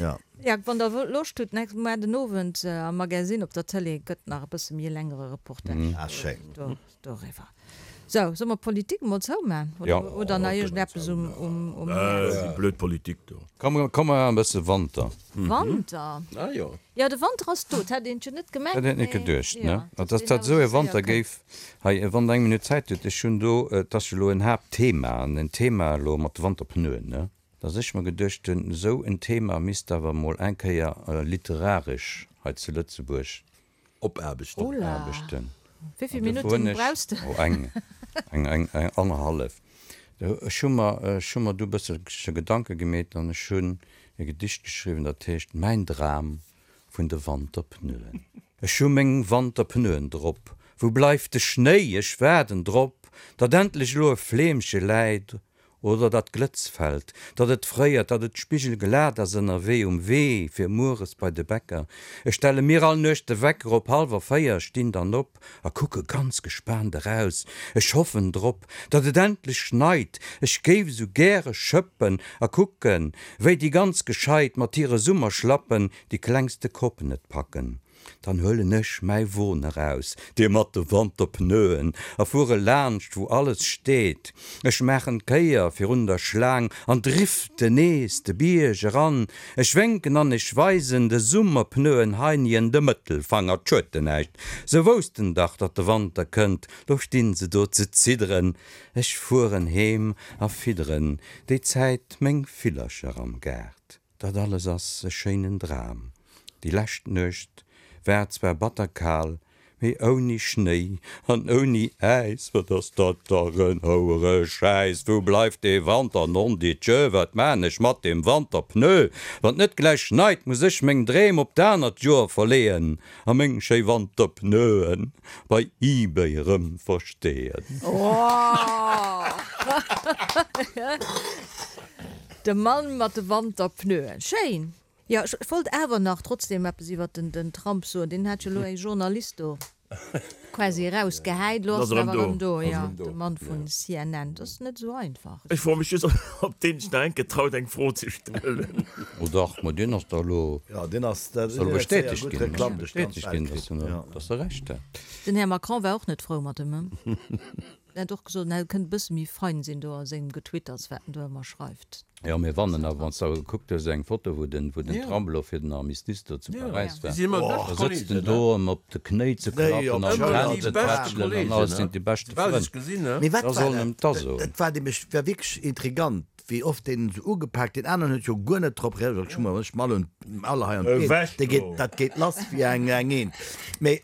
[SPEAKER 4] jo.
[SPEAKER 1] Jo, wann der Loscht hutt, muer den Owend am Magazine op der Tëlee gëtt nach e bësse méi e längere Reportage
[SPEAKER 4] Ah, schéin.
[SPEAKER 1] doriwwer. Sou, solle mer d'Politik emol zouman?
[SPEAKER 5] Ja.
[SPEAKER 1] Oder nach iergendeppes um, um, um Häerz?
[SPEAKER 2] Déi blöd Politik do.
[SPEAKER 5] Komm, komm mer maachen e bësse Wanter.
[SPEAKER 1] Wanter?
[SPEAKER 3] Ah jo.
[SPEAKER 1] Jo, de Wanter ass do. Dat hätt een jo net gemengt,
[SPEAKER 5] Dat hätt een net
[SPEAKER 1] mee
[SPEAKER 5] geduecht, ne?
[SPEAKER 1] jo,
[SPEAKER 5] Dass
[SPEAKER 1] dass deen
[SPEAKER 5] dat
[SPEAKER 1] awer
[SPEAKER 5] esou e
[SPEAKER 1] sou séier
[SPEAKER 5] Wanter
[SPEAKER 1] kënnt.
[SPEAKER 5] géif. Hei, wann Der eng Minutt Zäit hutt, ech hunn do, et ass jo elo en Haaptthema, an en Thema elo mat de Wanterpneuen, ne? Dass ech mer geduecht hunn, esou en Thema misst awer emol eng Kéier literaresch hei zu Lëtzebuerg
[SPEAKER 3] Opaarbechten.
[SPEAKER 5] Opaarbechten.
[SPEAKER 1] Wéi vill Minutten brauchs de?
[SPEAKER 5] Oh, eng, eng, eng, eng annerhallef. Ech hu mer, ech hu mer du e bësselche Gedanke gemeet an ech hunn e Gedicht geschriwwen, dat heescht Mäin Dram vun de Wanterpneuen. Ech hu meng Wanterpneuen drop, wou bleift de Schnéi? Ech waarden drop, datt endlech elo e Fleemche läit Oder datt Glëtz fält, datt et fréiert, datt et spigelglat ass ënnerwee um Wee fir mueres bei de Bäcker. Ech stelle mir all Nuecht de Wecker op hallwer 4, stinn dann op a kucke ganz gespaant eraus. Ech hoffen drop, datt et endlech schneit, ech géif esou gäre schëppen a kucken, wéi déi ganz Gescheit mat hire Summerschlappen déi klengste Kopp net packen. Dann huelen ech mäi Won eraus, dee mat de Wanterpneuen, a fuere laanscht, wou alles steet. Ech maachen d'Kéier virun der Schlaang an driften nees de Bierg eran. Ech wénken an ech weisen de Summerpneuen heinien de Mëttelfanger. 't schued de näischt, se woussten dach, datt de Wanter kënnt, lo stinn se do ze zidderen. Ech fueren heem a fidderen déi Zäit meng Villercher am Gaart. Dat alles ass e schéinen Dram. Déi lescht Nuecht war zwar batter kal, mee ouni Schnéi an ouni Äis. Wat ass dat dach en houere Schäiss! Wou bleift dee Wanter? Nondidjö, wat maan ech mat deem Wanterpneu? Wann 't net gläich schneit, muss ech meng Dreem op d'anert Joer verleeën a meng schéi Wanterpneuen bei eBay rëm versteeën.
[SPEAKER 1] De Mann mat de Wanterpneuen. Schéin! Jo, ech wollt awer nach trotzdem eppes iwwert den Trump soen. Deen hat jo elo ee Journalist do quasi erausgehäit. Elo ass en awer erëm do, jo, de Mann vun CNN. Dat ass net esou einfach.
[SPEAKER 2] Ech froe mech just, ob deen sech nach enke traut, eng Fro ze stellen.
[SPEAKER 5] Oh dach, ma deen ass da elo,
[SPEAKER 4] Jo, deen ass, dat
[SPEAKER 5] ass elo
[SPEAKER 4] huet séier
[SPEAKER 5] bestätegt
[SPEAKER 4] gutt
[SPEAKER 5] ginn,
[SPEAKER 4] Reklamm duerch d'ganz
[SPEAKER 5] bestätegt
[SPEAKER 4] Welt
[SPEAKER 5] ginn,
[SPEAKER 4] kritt.
[SPEAKER 5] dass en, dass e Recht hat.
[SPEAKER 1] Den Här Macron war och net frou mat em. En huet och gesot, en kënnt e bësse méi fein sinn do a sengem Getwitters, wat en do ëmmer schreift.
[SPEAKER 5] Jo, mir wannen awer, wann s de awer gekuckt hues, eng Foto, wou den, wou den Trump elo fir den Armistice do zu Paräis war, da sëtzt en do ëm op de Knéi ze klappen an d'Hänn ze tätschelen an alles, sinn déi beschte Frënn.
[SPEAKER 4] Mee wat
[SPEAKER 5] Da
[SPEAKER 4] war
[SPEAKER 5] sollen
[SPEAKER 4] dat?
[SPEAKER 5] em da soen.
[SPEAKER 4] Dat war nämlech, war wierklech intrigant. Wéi oft deen esou ugepaakt, deen aneren huet jo guer net drop reagéiert, ech hu ech mall un alle hei an d'Been, dee geet, dat geet lass wéi eng eng Eent. Mee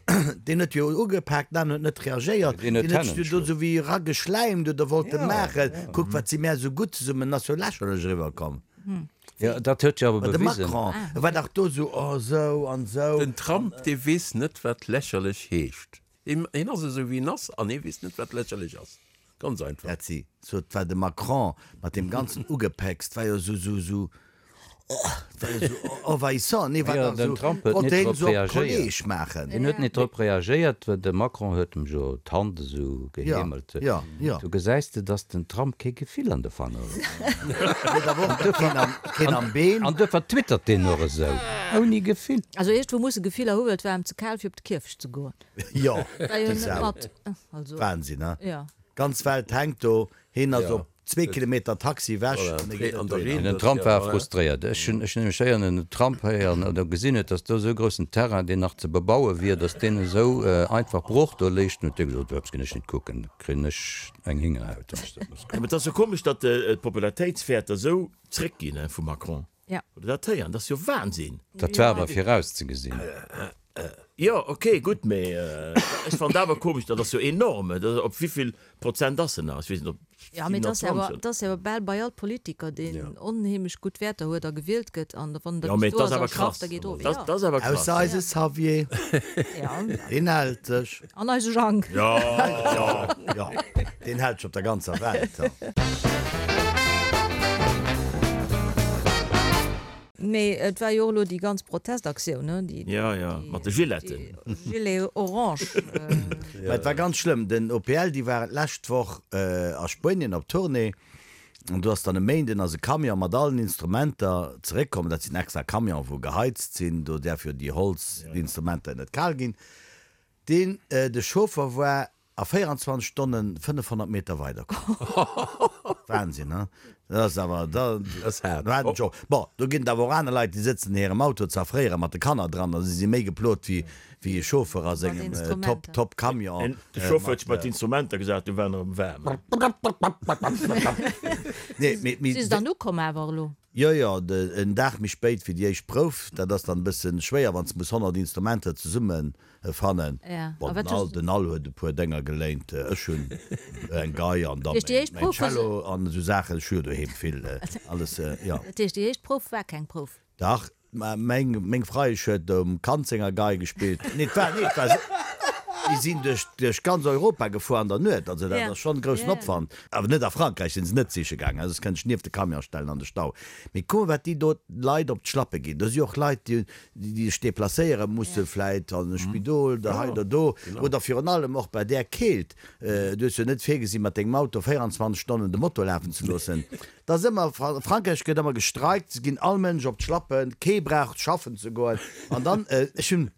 [SPEAKER 4] deen huet jo ugepaakt, den aneren huet net reagéiert,
[SPEAKER 5] Deen huet
[SPEAKER 4] deen huet
[SPEAKER 5] d'Hänn
[SPEAKER 4] sech jo do esou wéi erageschläimt oder wollt e maachen, kuck wat si mär esou gutt zesummen, ass jo lächerlech eriwwer komm.
[SPEAKER 5] Jo, dat huet jo awer
[SPEAKER 4] De
[SPEAKER 5] bewisen.
[SPEAKER 4] Macron, e war dach do esou, oh esou an esou.
[SPEAKER 3] Den Trump, dee weess net wat lächerlech heescht. Hien ass esou wéi en ass an hie weess net wat lächerlech ass. Ganz einfach.
[SPEAKER 4] Dat si sou, et war de Macron mat deem ganzen Ugepäcks, 't war jo sou, sou, sou, oh, 't war jo sou envahissant, nee, war
[SPEAKER 5] Jo,
[SPEAKER 4] dach
[SPEAKER 5] den
[SPEAKER 4] sou,
[SPEAKER 5] Trump huet
[SPEAKER 4] wollt
[SPEAKER 5] net
[SPEAKER 4] hien
[SPEAKER 5] drop
[SPEAKER 4] sou op
[SPEAKER 5] reagéiert.
[SPEAKER 4] Kolleg maachen.
[SPEAKER 5] Hien huet net drop reagéiert, well de Macron huet em jo d'Hand esou geheemelt.
[SPEAKER 4] Jo, jo, jo.
[SPEAKER 5] Do gesäis de, dass den Trump kee Gefill an de Fanger huet.
[SPEAKER 4] Huet awer och keen am, keen am Been.
[SPEAKER 5] An duerfir twittert deen och esou, ouni Gefill.
[SPEAKER 1] Also iergendwou muss e Gefiller hu well et war em ze kal fir op de Kierfecht ze goen.
[SPEAKER 4] Jo,
[SPEAKER 1] War jo
[SPEAKER 4] dat
[SPEAKER 1] net
[SPEAKER 4] ass
[SPEAKER 1] mat. Also,
[SPEAKER 4] Wahnsinn, he?
[SPEAKER 1] ja.
[SPEAKER 4] Ganz Welt hänkt do, hien ass op zwee Kilometer Taxi ewech an e geet net dohinner.
[SPEAKER 5] Den Trump war frustréiert. Ech hunn ech hunn nämlech héieren, den Trump héieren oder gesinn huet, datt do esou e groussen Terrain, deen nach ze bebaue wier, datt deen esou einfach brooch do léich. Dann huet dee gesot, Eppes ginn ech net kucken, da kréien ech eng Héngerhaut, wann ech dat muss
[SPEAKER 2] Mä
[SPEAKER 5] kucken.
[SPEAKER 2] et ass jo komesch, datt d'Popularitéitswäerter esou zréckginn vum Macron.
[SPEAKER 1] Ja.
[SPEAKER 2] Hutt Der dat héieren? Dat ass jo Wahnsinn!
[SPEAKER 5] Dat war awer virauszegesinn.
[SPEAKER 2] Jo, ok, gutt, mee ech fannen et awer komesch, dat ass jo enorm. Op wéivill Prozent ass en nach? Ech weess net, op
[SPEAKER 1] Ja, mee et ass jo awer,
[SPEAKER 2] 27.
[SPEAKER 1] et ass jo awer bal bei all Politiker, deen onheemlech gutt Wäerter huet a gewielt gëtt, an wann en da
[SPEAKER 2] Jo, mee
[SPEAKER 1] bis
[SPEAKER 2] et
[SPEAKER 1] do
[SPEAKER 2] ass
[SPEAKER 1] ass a
[SPEAKER 2] awer
[SPEAKER 1] schafft,
[SPEAKER 2] krass.
[SPEAKER 1] da geet of.
[SPEAKER 2] Dat
[SPEAKER 1] Ja.
[SPEAKER 2] ass awer krass.
[SPEAKER 4] Ausser eise Xavier,
[SPEAKER 1] Ja.
[SPEAKER 4] deen hält sech.
[SPEAKER 1] An eise Jang.
[SPEAKER 2] Jo,
[SPEAKER 4] Jo, jo, deen hält sech op der ganzer Welt.
[SPEAKER 1] Mee et war jo och elo déi ganz Protestaktioun, ne? Déi,
[SPEAKER 2] Ja, ja, mat de Giletten.
[SPEAKER 1] déi Gilets orange.
[SPEAKER 4] Mä et war ganz schlëmm. Den OPL, déi waren d'lescht Woch a Spuenien op Tournée an do ass dann e Méinden ass e Camion mat allen Instrumenter zeréckkomm. Dat sinn extra Camionen, wou geheizt sinn, do däerf jo déi Holzinstrumenter net kal ginn. Deen, de Chauffer war A 24 Stonnen 500 Meter weider komm. Wahnsinn, he? Dat ass awer, da,
[SPEAKER 3] Ass haart.
[SPEAKER 4] do hat en scho, bon, do ginn et awer och aner Leit, déi sëtzen an hirem Auto z'erfréiere mat de Kanner dran, also si si méi geplot wéi, wéi e Chauffeur a sengem Top,
[SPEAKER 1] Instrumenter.
[SPEAKER 4] Top Camion.
[SPEAKER 2] De Chauffeur huet sech bei d'Instrumenter gesat, du war en erëm waarm.
[SPEAKER 4] Nee, mee, mee.
[SPEAKER 1] Si se dann ukomm awer elo?
[SPEAKER 4] Jo, jo, en Dag méi spéit wéi déi éischt Prouf. Dat ass dann e bëssen schwéier, wann s de muss 100 Instrumenter zesumme fannen. Bon, den Al, den Al huet e puer Dénger geléint, ech hunn eng Gei an da mäin Cello an esou Saachen. Ech hu jo doheem vill alles, jo.
[SPEAKER 1] Dat heescht, déi éischt Prouf war keng Prouf?
[SPEAKER 4] Dach, Mä meng, meng Freiesch huet um Kand senger Gei gespillt. Nee, et war, nee, et war, déi sinn duerch, duerch ganz Europa gefuer an der Nuet. Also dat ass schonn e groussen Opwand. Awer net a Frankräich sinn se net siche gaangen, soss kënnt ech nieft de Camion stellen an de Stau. Mee kuck mol, wat déi do d'Leit op d'Schlappe ginn. Do si och Leit, déi, déi sech deplacéiere musse vläit an e Spidol oder hei oder do. Oder virun allem och bei där Keelt. Du hues jo net virgesinn, mat dengem Auto 24 Stonnen de Motor lafen ze loossen. Et ass ëmmer, a Frankräich gëtt ëmmer gestreikt, se ginn all Mënsch op d'Schlappen, kee brauch schaffen ze goen. An dann, ech hunn,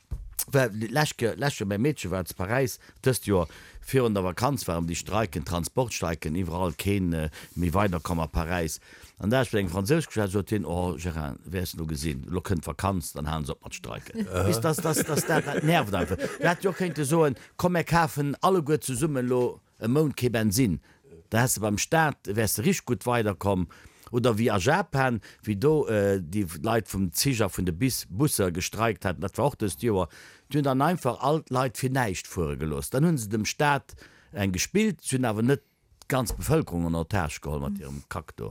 [SPEAKER 4] well d'lescht Ke, lescht Joer, mäi Meedche war zu Paräis, dëst Joer virun der Vakanz waren déi Streiken, Transportstreiken iwwerall, keen méi weiderkomm a Paräis. An da hat ech mat engem Fransous geschwat, sot hien, oh Gérard, wäers elo gesinn, elo kënnt d'Vakanz, dann halen se op mat streiken. Weess, dass, dass, dass dat, dat nervt einfach. Du hätt jo och kéinte soen, komm mär kafen alleguer zesummen elo e Mount kee Bensinn, da häss de beim Staat, wäers de richteg gutt weiderkomm. Oder wéi a Japan, wéi do déi Leit vum Zich a vun de Bis, Busser gestreikt haten, dat war och dëst Joer, déi hunn dann einfach all d'Leit fir näischt fuere gelooss. Dann hu se dem Staat eng gespillt, se hunn awer net d'ganz Bevëlkerung en otage geholl mat hirem Kack do.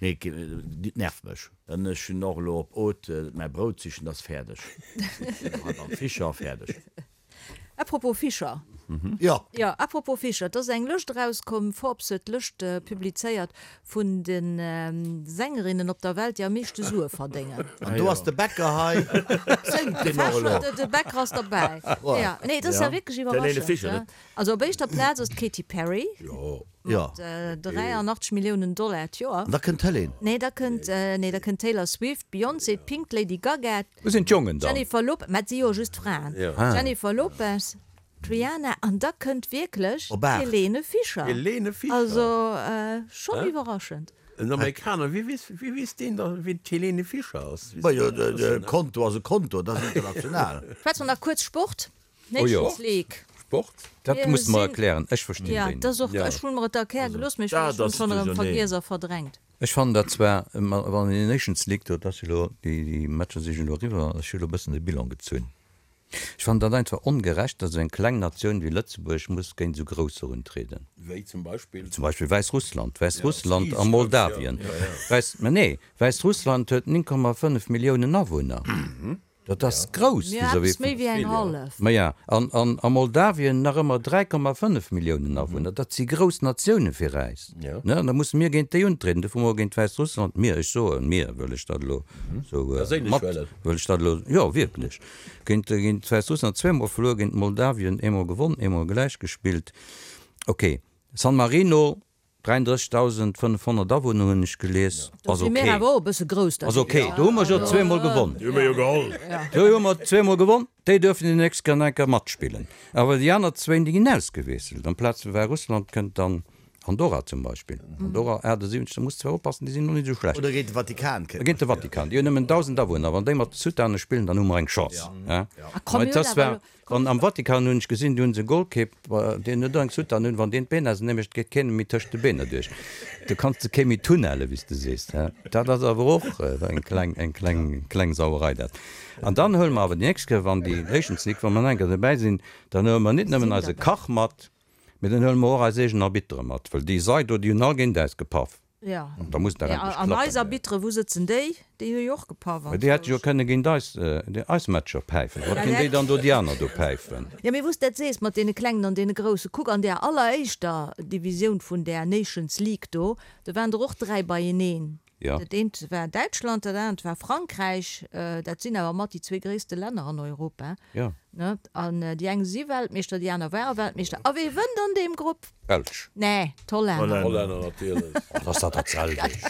[SPEAKER 4] Nee, dit nervt mech. An ech hunn och elo op Haute mäi Brout sichen, dat ass fäerdeg. Hei beim Fischer, fäerdeg.
[SPEAKER 1] Apropos Fischer.
[SPEAKER 4] Jo.
[SPEAKER 1] Jo, apropos Fischer, et ass eng Lëscht erauskomm, Forbes huet d'Lëscht publizéiert vun de Sängerinnen op der Welt, déi am meeschte Sue verdéngen.
[SPEAKER 4] An do ass de Bäcker hei. Séngt deen och elo?
[SPEAKER 1] De Bäcker ass derbäi. Jo, nee, et ass ja wierklech iwwerraschend. Also op éischter Plaz ass d'Katy Perry mat 83 Milliounen Dollar d'Joer.
[SPEAKER 4] An da kënnt d'Helene.
[SPEAKER 1] Nee, da kënnt, nee, da kënnt d'Taylor Swift, d'Beyoncé, d'Pink, d'Lady Gaga,
[SPEAKER 5] Wou sinn d'Jongen dann?
[SPEAKER 1] Jennifer Lopez, mä et si jo just Fraen, Jennifer Lopez. D'Rihanna, an da kënnt wierklech d'Helene Fischer.
[SPEAKER 3] Helene Fischer.
[SPEAKER 1] Also schonn iwwerraschend.
[SPEAKER 3] En Amerikaner, wéi weess, wéi weess deen da wien d'Helene Fischer ass?
[SPEAKER 4] Majo, de Konto ass e Konto, dat ass international.
[SPEAKER 1] Schwätze mer nach kuerz Sport, Nations League.
[SPEAKER 3] Sport?
[SPEAKER 5] Dat muss de mer erklären, ech verstinn
[SPEAKER 1] déi
[SPEAKER 5] net.
[SPEAKER 1] Jo, dat ass och, ech hunn mer et erkläre gelooss, mee ech hunn et schonn erëm vergiess a verdrängt.
[SPEAKER 5] Ech fannen dat zwar, wann een Nations League do, dat ass jo elo, déi Matcher si jo elo eriwwer, ech hu elo e bëssen de Bilan gezunn. Ech fannen dat einfach ongerecht, datt esou eng kleng Natioun wéi Lëtzebuerg muss géint esou grousser untrieden.
[SPEAKER 3] Wéi zum Beispill?
[SPEAKER 5] Zum Beispill Wäissrussland. Wäissrussland a Moldawien. Wäiss, mä nee, Wäissrussland huet 9,5 Milliounen Awunner. Dat ass grouss
[SPEAKER 1] vis-à-vis vun. Eppes méi wéi eng hallef.
[SPEAKER 5] Maja, an, an a Moldawien nach ëmmer 3,5 Milliounen Awunner. Dat si grouss Natioune fir äis. Ne, an da musse mir géint déi untrieden. Dofir hu mer géint Wäissrussland, mir, ech soen mir, wëll ech dat elo esou mat, wëll ech dat elo, jo wierklech, géint, géint Wäissrussland zweemol verluer, géint Moldawien eemol gewonn, eemol gläich gespillt. Ok, San Marino, 33.500 Awunner hunn ech gelies. Ass ok. Ass ok. Do hu mer jo zweemol gewonn.
[SPEAKER 2] Déi hu mer jo geholl.
[SPEAKER 5] Do hu mer zweemol gewonn. Déi duerfen déi nächst Kéier nach eng Kéier matspillen. Awer déi aner zwéin, déi ginn ausgewiesselt. Amplaz vu Wäissrussland kënnt dann Andorra zum Beispill. Andorra 78, da muss zwar oppassen, déi sinn och net esou schlecht.
[SPEAKER 4] Oder géint de Vatikan
[SPEAKER 5] kënnt. Géint de Vatikan. Déi hunn nëmmen 1.000 Awunner. Wann déi mat de Sutane spillen, dann hu mer eng Chance. Mä et ass zwar. An am Vatikan hunn ech gesinn, do hunn se e Golkipp, deen huet och eng Soutane un, wann deen d'Been ausenee mécht, geet keen méi tëscht de Beener duerch. Do kanns de kee méi tunnelle wéi s de sees. Dat ass awer och eng kleng, eng kleng, kleng Sauerei dat. An dann huele mer awer déi nächst Kéier, wann déi Nations League, wa mer nach eng Kéier dobäi sinn, dann huele mer nit nëmmen eise Kach mat, mee dann huele mer och eis eegen Arbittere mat, well déi Sei do, déi hunn all géint äis gepaff.
[SPEAKER 1] Ja.
[SPEAKER 5] An da muss et dach
[SPEAKER 1] endlech
[SPEAKER 5] klappen.
[SPEAKER 1] An eis Arbitre, wou sëtzen déi? Déi hu jo och gepaff
[SPEAKER 5] Mä déi hätte jo kënne géint eis, eis Matcher päifen. Wat ginn déi dann do déi aner do päifen?
[SPEAKER 1] Jo, mee wou s dat sees mat deene Klengen an deene Groussen, kuck an där alleréischter Divisioun vun där Nations League do, do waren der och 3 beieneen.
[SPEAKER 5] Jo.
[SPEAKER 1] Dat eent war Däitschland, dat anert war Frankräich, dat sinn awer mat déi zwee gréisste Länner an Europa,
[SPEAKER 5] Jo.
[SPEAKER 1] ne? An déi eng si Weltmeeschter, déi aner ware Weltmeeschter. A wee wënnt an deem Grupp?
[SPEAKER 5] Belsch.
[SPEAKER 1] Nee, d'Hollänner.
[SPEAKER 3] Hollänner natierlech.
[SPEAKER 5] Oh, ass dat dat selwecht?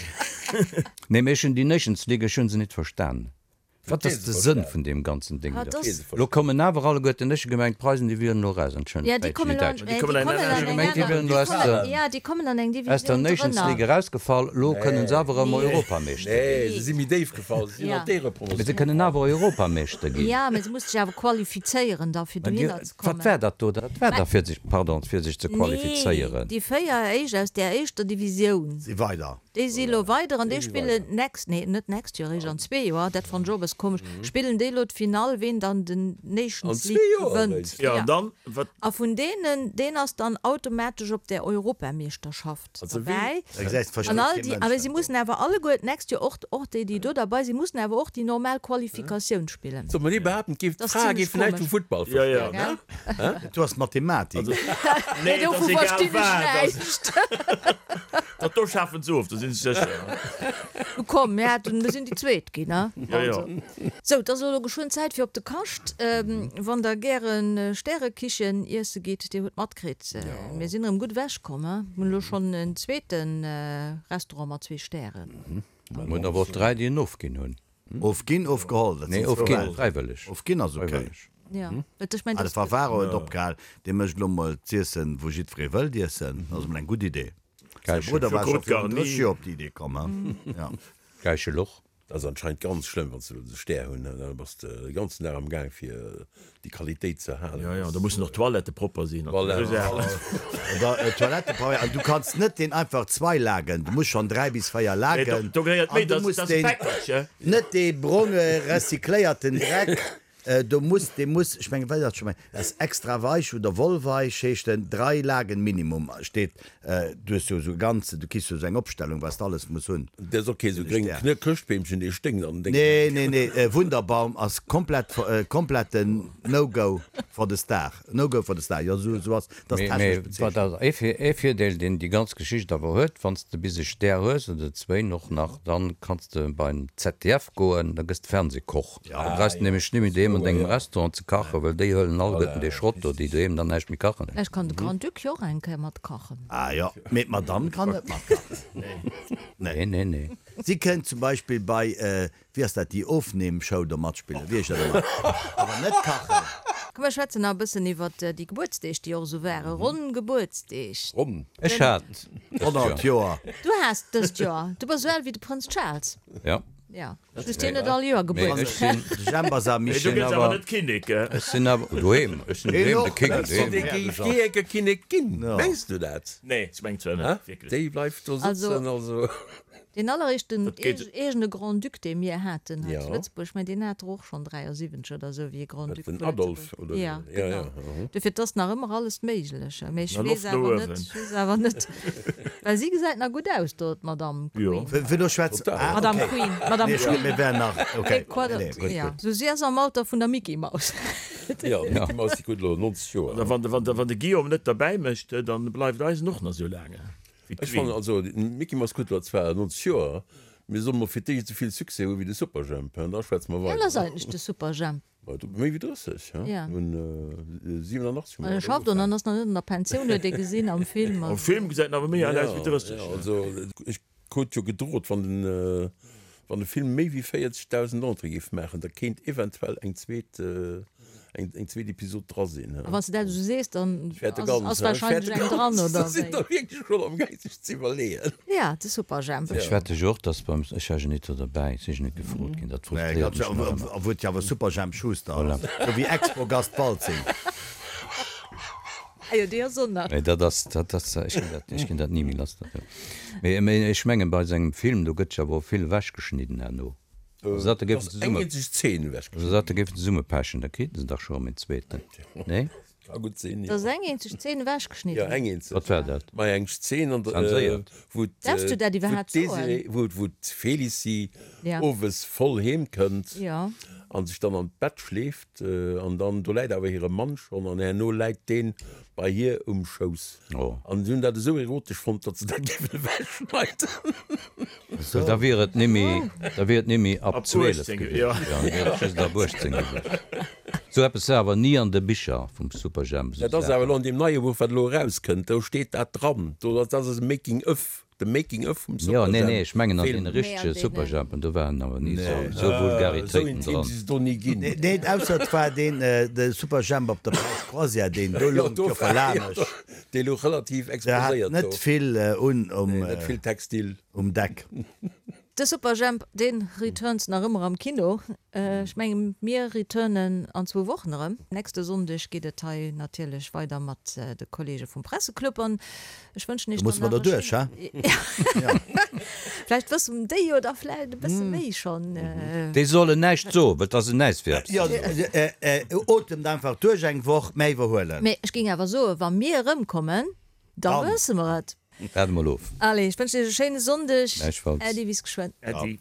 [SPEAKER 5] Nee, mee ech hunn déi Nations League, ech hunn se nit verstan. Wat ass de Sënn vun deem ganzen Ding do? Lo kommen awer alleguerten, ech hu gemengt d'Preisen déi wieren elo raus,
[SPEAKER 1] Entschëllegt, déi Däitsch, déi Däitsch. Ech hu gemengt déi wieren elo aus
[SPEAKER 5] der, aus der Nations League erausgefall, lo kënnen se awer erëm Europameeschter
[SPEAKER 3] ginn. Nee, se si méi déif gefall, se sinn an
[SPEAKER 5] d'Éierepromotioun. Mee se kënnen awer Europameeschter ginn.
[SPEAKER 1] Jo, mee se musse sech awer qualifizéieren da fir dohinner ze
[SPEAKER 5] kommen. Wat war dat do? Dat war da fir sech, pardon, fir sech ze qualifizéieren.
[SPEAKER 1] Nee, déi 4 éischt aus där éischter Divisioun.
[SPEAKER 4] Si weider.
[SPEAKER 1] Déi si elo weider an déi spillen next, nee net next Joer, eréischt an zwee Joer, dat fannen ech och e bësse komesch, spillen déi elo d'Finall, ween dann den Nations League gewënnt.
[SPEAKER 2] Jo, an dann, wat?
[SPEAKER 1] A vun deenen, deen ass dann automatesch op där Europameeschterschaft derbäi. An all déi, awer si mussen awer alleguer d'nächst Joer och, och déi, déi do derbei sinn, mussen awer och déi normal Qualifikatioun spillen.
[SPEAKER 3] Soll mer ni behaapten, d'géif, d'Frae géifen näischt vum Futtball verstoen,
[SPEAKER 4] ne? Du ass Mathematik.
[SPEAKER 1] Nee, dovu verstinn ech näischt.
[SPEAKER 2] Dat do schafen se of, do sinn ech sécher.
[SPEAKER 1] Nu komm, mir haten, mir sinn déi Zweet ginn, ne?
[SPEAKER 2] Jo, jo.
[SPEAKER 1] Sou, et ass elo geschwënn Zäit fir op de Kascht. Wann der gäre Stärekichen iesse gitt, dir hutt matkritt, mir sinn erëm gutt ewech komm, he? Mir hunn elo schonn en zweete Restaurant mat zwee Stären.
[SPEAKER 5] Mir hunn awer och dräi, déi en ofginn hunn.
[SPEAKER 4] Ofginn, ofgeholl, dat
[SPEAKER 5] sinn zwou Welten. Fräiwëlleg.
[SPEAKER 4] Ofginn ass ok.
[SPEAKER 1] Jo, et ech mengen,
[SPEAKER 4] Ah, de Favaro huet opgehal, dee mécht elo mol z'iessen, wou jiddweree wëllt iessen. Dat ass emol eng gutt Idee. Säi Brudder war scho virun 30 Joer op déi Idee komm, he? Jo.
[SPEAKER 5] Gäiche Loch.
[SPEAKER 3] Dat ass anscheinend ganz schlëmm, wann s de elo de Stär hunn, da bass de de ganzen Dag am Gaang fir déi Qualitéit ze halen.
[SPEAKER 2] Jo, jo, da mussen och d'Toilettë propper sinn.
[SPEAKER 3] Voilà.
[SPEAKER 4] Oder Toilettë propper, an du kanns net deen einfach zwei Lagen, du muss schonn 3 bis 4 Lagen.
[SPEAKER 2] Do gehéiert méi,
[SPEAKER 4] An du
[SPEAKER 2] dat
[SPEAKER 4] muss
[SPEAKER 2] ass e
[SPEAKER 4] deen,
[SPEAKER 2] Päckelche.
[SPEAKER 4] net dee bronge recycléierten Dreck, Do muss, dee muss, ech mengen, wéi ass dat scho mei, dat ass extra weich oder wollweich heescht en, drei Lagen Minimum steet, du hues jo esou e ganze, du kriss jo esou eng Opstellung, wat s de alles muss hunn.
[SPEAKER 3] Dat ass och kee sou gréng Chrëschtbeemchen, dee sténkt an
[SPEAKER 4] dengem. Nee, nee, nee, Wunderbaum ass komplett, kompletten No-Go for the Star, No-Go for the Star, jo, esou, esou ass, dat ass
[SPEAKER 5] Mee,
[SPEAKER 4] technesch
[SPEAKER 5] mee wat
[SPEAKER 4] bezeechent.
[SPEAKER 5] ass ee, ee Virdeel, deen déi ganz Geschicht awer huet, wann s de bis e Stär hues, oder zwéin och nach, dann kanns de beim ZDF goen, da gëss de Fernsehkoch. Da brauchs de nämlech net méi doheem an dengem Restaurant ze kachen, well déi huelen alleguerten dee Schrott do, déi doheem dann näischt méi kachen.
[SPEAKER 1] Vläicht kann de Grand-Duc jo och eng Kéier mat kachen.
[SPEAKER 4] Ah jo, mee d'Madame kann net mat kachen.
[SPEAKER 5] Nee, nee, nee.
[SPEAKER 4] Si kënnt zum Beispill bei, wéi ass dat, déi Ofnehmshow do matspillen, wéi heescht dat ëmmer? Awer net kachen.
[SPEAKER 1] Komm mir schwätzen nach e bëssen iwwert déi Gebuertsdeeg, déi och esou waren. Ronn Gebuertsdeeg.
[SPEAKER 3] Ronn.
[SPEAKER 5] Ech hat dëst
[SPEAKER 4] 100 Joer.
[SPEAKER 1] Du has dëst Joer. Du bass esou al wéi de Prënz Charles.
[SPEAKER 5] Ja.
[SPEAKER 1] Ja. Just hien huet all Joer
[SPEAKER 5] Mee ech
[SPEAKER 1] Gebuertsdag.
[SPEAKER 5] sinn.
[SPEAKER 4] De Jemp ass am
[SPEAKER 2] Mee du
[SPEAKER 4] Michel.
[SPEAKER 2] gëss awer net Kinnek.
[SPEAKER 5] Ech sinn awer doheem. Ech sinn doheem de King. Doheem.
[SPEAKER 3] Dee géif jee enke Kinnek ginn. Mengs du dat?
[SPEAKER 2] Nee, ech mengen zwar net. Wierklech.
[SPEAKER 3] Déi bleift do sëtzen. Also.
[SPEAKER 1] Deen alleréischten
[SPEAKER 2] Dat geet.
[SPEAKER 1] eegene Grand-Duc, dee mir haten hei
[SPEAKER 3] Ja.
[SPEAKER 1] zu Lëtzebuerg, mä deen hat der och schonn 73 oder esou, wéi e Grand-Duc
[SPEAKER 3] Den
[SPEAKER 1] vu
[SPEAKER 3] Adolphe
[SPEAKER 1] Lëtzebuerg.
[SPEAKER 3] oder
[SPEAKER 1] Ja,
[SPEAKER 3] esou. Ja,
[SPEAKER 1] genau.
[SPEAKER 3] ja, mhm.
[SPEAKER 1] Dofir, et ass nach ëmmer alles méiglech. Mee ech
[SPEAKER 2] Na,
[SPEAKER 1] weess
[SPEAKER 2] Loft no
[SPEAKER 1] awer net,
[SPEAKER 2] uewen.
[SPEAKER 1] ech weess awer net, well si gesäit nach gutt aus do, d'Madame
[SPEAKER 2] Jo.
[SPEAKER 1] Queen.
[SPEAKER 4] Wéi wéi do schwätz.
[SPEAKER 3] Total.
[SPEAKER 4] Ah,
[SPEAKER 1] Madame
[SPEAKER 4] okay.
[SPEAKER 1] Queen, Madame
[SPEAKER 4] Nee, ech
[SPEAKER 1] Queen.
[SPEAKER 4] mir wären nach, okay.
[SPEAKER 1] Nee, quoi,
[SPEAKER 4] Nee, nee, gutt,
[SPEAKER 1] ja.
[SPEAKER 4] gutt.
[SPEAKER 1] Sou, si ass am Alter vun der Mickey Maus.
[SPEAKER 3] Ja, d'Mickey Maus, déi krut elo 90 Joer.
[SPEAKER 2] Oder wann de, wann de, wann de Guillaume net derbäi mécht, dann bleift eisen och nach esou laang.
[SPEAKER 3] Ech fannen also, den Mickey Mouse krut elo zwar 90 Joer, mee soll mol fir d'éischt esou vill Succès hu wéi de Superjhemp, hein, da schwätze mer
[SPEAKER 1] Wéi al
[SPEAKER 3] weider.
[SPEAKER 1] ass eigentlech de Superjhemp?
[SPEAKER 3] Méi wéi 30, hein,
[SPEAKER 1] Ja.
[SPEAKER 3] un 87 hu
[SPEAKER 1] An
[SPEAKER 3] mer
[SPEAKER 1] e schafft an ass nach net an der Pensioun, huet ee gesinn am Film.
[SPEAKER 2] Am Film gesäit en awer méi al aus wéi 30.
[SPEAKER 3] Ja, also ech krut jo gedrot, wann den wann de Film méi wéi 40.000 Entrée géif maachen, da kéint eventuell eng zweet eng zweet Episod dra sinn.
[SPEAKER 1] A wann s de dat esou sees, dann
[SPEAKER 3] Ech fäerte
[SPEAKER 1] ass
[SPEAKER 3] ganz,
[SPEAKER 1] ass
[SPEAKER 3] ech
[SPEAKER 1] wahrscheinlech
[SPEAKER 3] fäerte
[SPEAKER 1] eng dran,
[SPEAKER 3] ganz.
[SPEAKER 1] oder
[SPEAKER 3] Da sinn
[SPEAKER 1] wéi?
[SPEAKER 3] der wierklech schonn am gaang sech ze iwwerleeën.
[SPEAKER 1] Ja, de Superjhemp.
[SPEAKER 5] Ech wette jo och, dass beim, ech war jo net do derbäi, si jo net gefrot ginn, dat
[SPEAKER 4] Nee,
[SPEAKER 5] frustréiert
[SPEAKER 4] ganz,
[SPEAKER 5] mech nach ëmmer.
[SPEAKER 4] obwuel et jo awer Superjhemp Schuster ass.
[SPEAKER 5] Voilà.
[SPEAKER 4] Sou wéi Expogast Waltzing.
[SPEAKER 1] Ah jo, déi ass och nach.
[SPEAKER 5] Mee dat ass, dat ass, ech ginn dat, ech ginn dat ni méi lass, dat do. Mee, mee ech mengen, bei sengem Film, do gëtt jo awer och vill ewechgeschnidden herno. Also dat do géifen
[SPEAKER 3] Ass eng
[SPEAKER 5] zesumme,
[SPEAKER 3] eenzeg Zeen ewechgeschnidden.
[SPEAKER 5] also dat do géifen zesummepechen, da kriiten se dach scho erëm en zweeten, nee?
[SPEAKER 3] Ka gutt sinn,
[SPEAKER 1] Da
[SPEAKER 3] jo.
[SPEAKER 1] ass eng eenzeg Zeen ewechgeschnidden.
[SPEAKER 3] Jo, eng eenzeg.
[SPEAKER 5] Wat war dat?
[SPEAKER 3] Ma eng Zeen, an der,
[SPEAKER 5] Zenséiert?
[SPEAKER 3] wou
[SPEAKER 1] Darfs du dat
[SPEAKER 3] wou
[SPEAKER 1] iwwerhaapt soen?
[SPEAKER 3] d'Désirée, wou, wou d'Félicie
[SPEAKER 1] Ja.
[SPEAKER 3] owes voll heem kënnt
[SPEAKER 1] Ja.
[SPEAKER 3] an sech dann an d'Bett schleeft an dann, do läit awer hire Mann schonn an herno läit deen bei hir um Schouss.
[SPEAKER 5] Oh.
[SPEAKER 3] An si hunn dat esou erotesch fonnt, datt se dat géifen ewechschneiden.
[SPEAKER 5] Well da wier et nimmi, da wier et nimmi ab
[SPEAKER 2] Ab
[SPEAKER 5] 12
[SPEAKER 2] 18,
[SPEAKER 5] gewiescht.
[SPEAKER 2] ja.
[SPEAKER 5] Ja, da wier et just ab 18 gewiescht. Sou eppes war awer ni an de Bicher vum Superjhemp, sou
[SPEAKER 3] Dat ass awer
[SPEAKER 5] Saachen.
[SPEAKER 3] elo an deem neie Buch, wat elo erauskënnt, do steet dat dran. Do, dat ass e Making of. De Making of vum
[SPEAKER 5] Jo, nee, nee, ech mengen an
[SPEAKER 3] Superjhemp-Film.
[SPEAKER 5] deene
[SPEAKER 1] Mee an
[SPEAKER 5] richtege
[SPEAKER 1] deenen.
[SPEAKER 5] Superjhempen, do waren awer ni sou, sou
[SPEAKER 3] Esou
[SPEAKER 5] Vulgaritéiten
[SPEAKER 3] intim
[SPEAKER 5] dran.
[SPEAKER 3] si se do ni ginn.
[SPEAKER 4] Neen, ausser et war deen, de Superjhemp op der Paräis Croisière, deen do
[SPEAKER 3] Jo,
[SPEAKER 4] louch
[SPEAKER 3] do
[SPEAKER 4] jo
[SPEAKER 3] war, jo,
[SPEAKER 4] verlamesch.
[SPEAKER 3] do, dee louch relativ
[SPEAKER 4] Der hat
[SPEAKER 3] exposéiert
[SPEAKER 4] net
[SPEAKER 3] do.
[SPEAKER 4] vill un um,
[SPEAKER 3] Nee, net vill Textil.
[SPEAKER 4] um Deck.
[SPEAKER 1] De Superjhemp, deen returns nach ëmmer am Kino. Ech mengen, mir returnen an zwou Wochen erëm. Nächste Sonndeg geet et hei natierlech weider mat de Kollege vum Presseclub an ech wënschen
[SPEAKER 4] Do
[SPEAKER 1] iech
[SPEAKER 4] musse
[SPEAKER 1] dann
[SPEAKER 4] mer
[SPEAKER 1] nach e
[SPEAKER 4] derduerch,
[SPEAKER 1] schéin.
[SPEAKER 4] he?
[SPEAKER 1] Vläicht wëssen déi jo da vläicht e bësse méi schonn.
[SPEAKER 5] Déi sollen näischt soen, well et ass en näischt fir eppes
[SPEAKER 4] Jo,
[SPEAKER 5] ze soen.
[SPEAKER 4] otemt einfach duerch eng Woch, mä iwwerhuelen.
[SPEAKER 1] Mee ech géing awer soen, wa mir erëmkommen, da wësse mer et.
[SPEAKER 5] Waarde mol of.
[SPEAKER 1] Allez, ech wënschen iech e schéine Sonndeg.
[SPEAKER 5] Gläichfalls.
[SPEAKER 1] Äddi, bis geschwënn.
[SPEAKER 2] Äddi.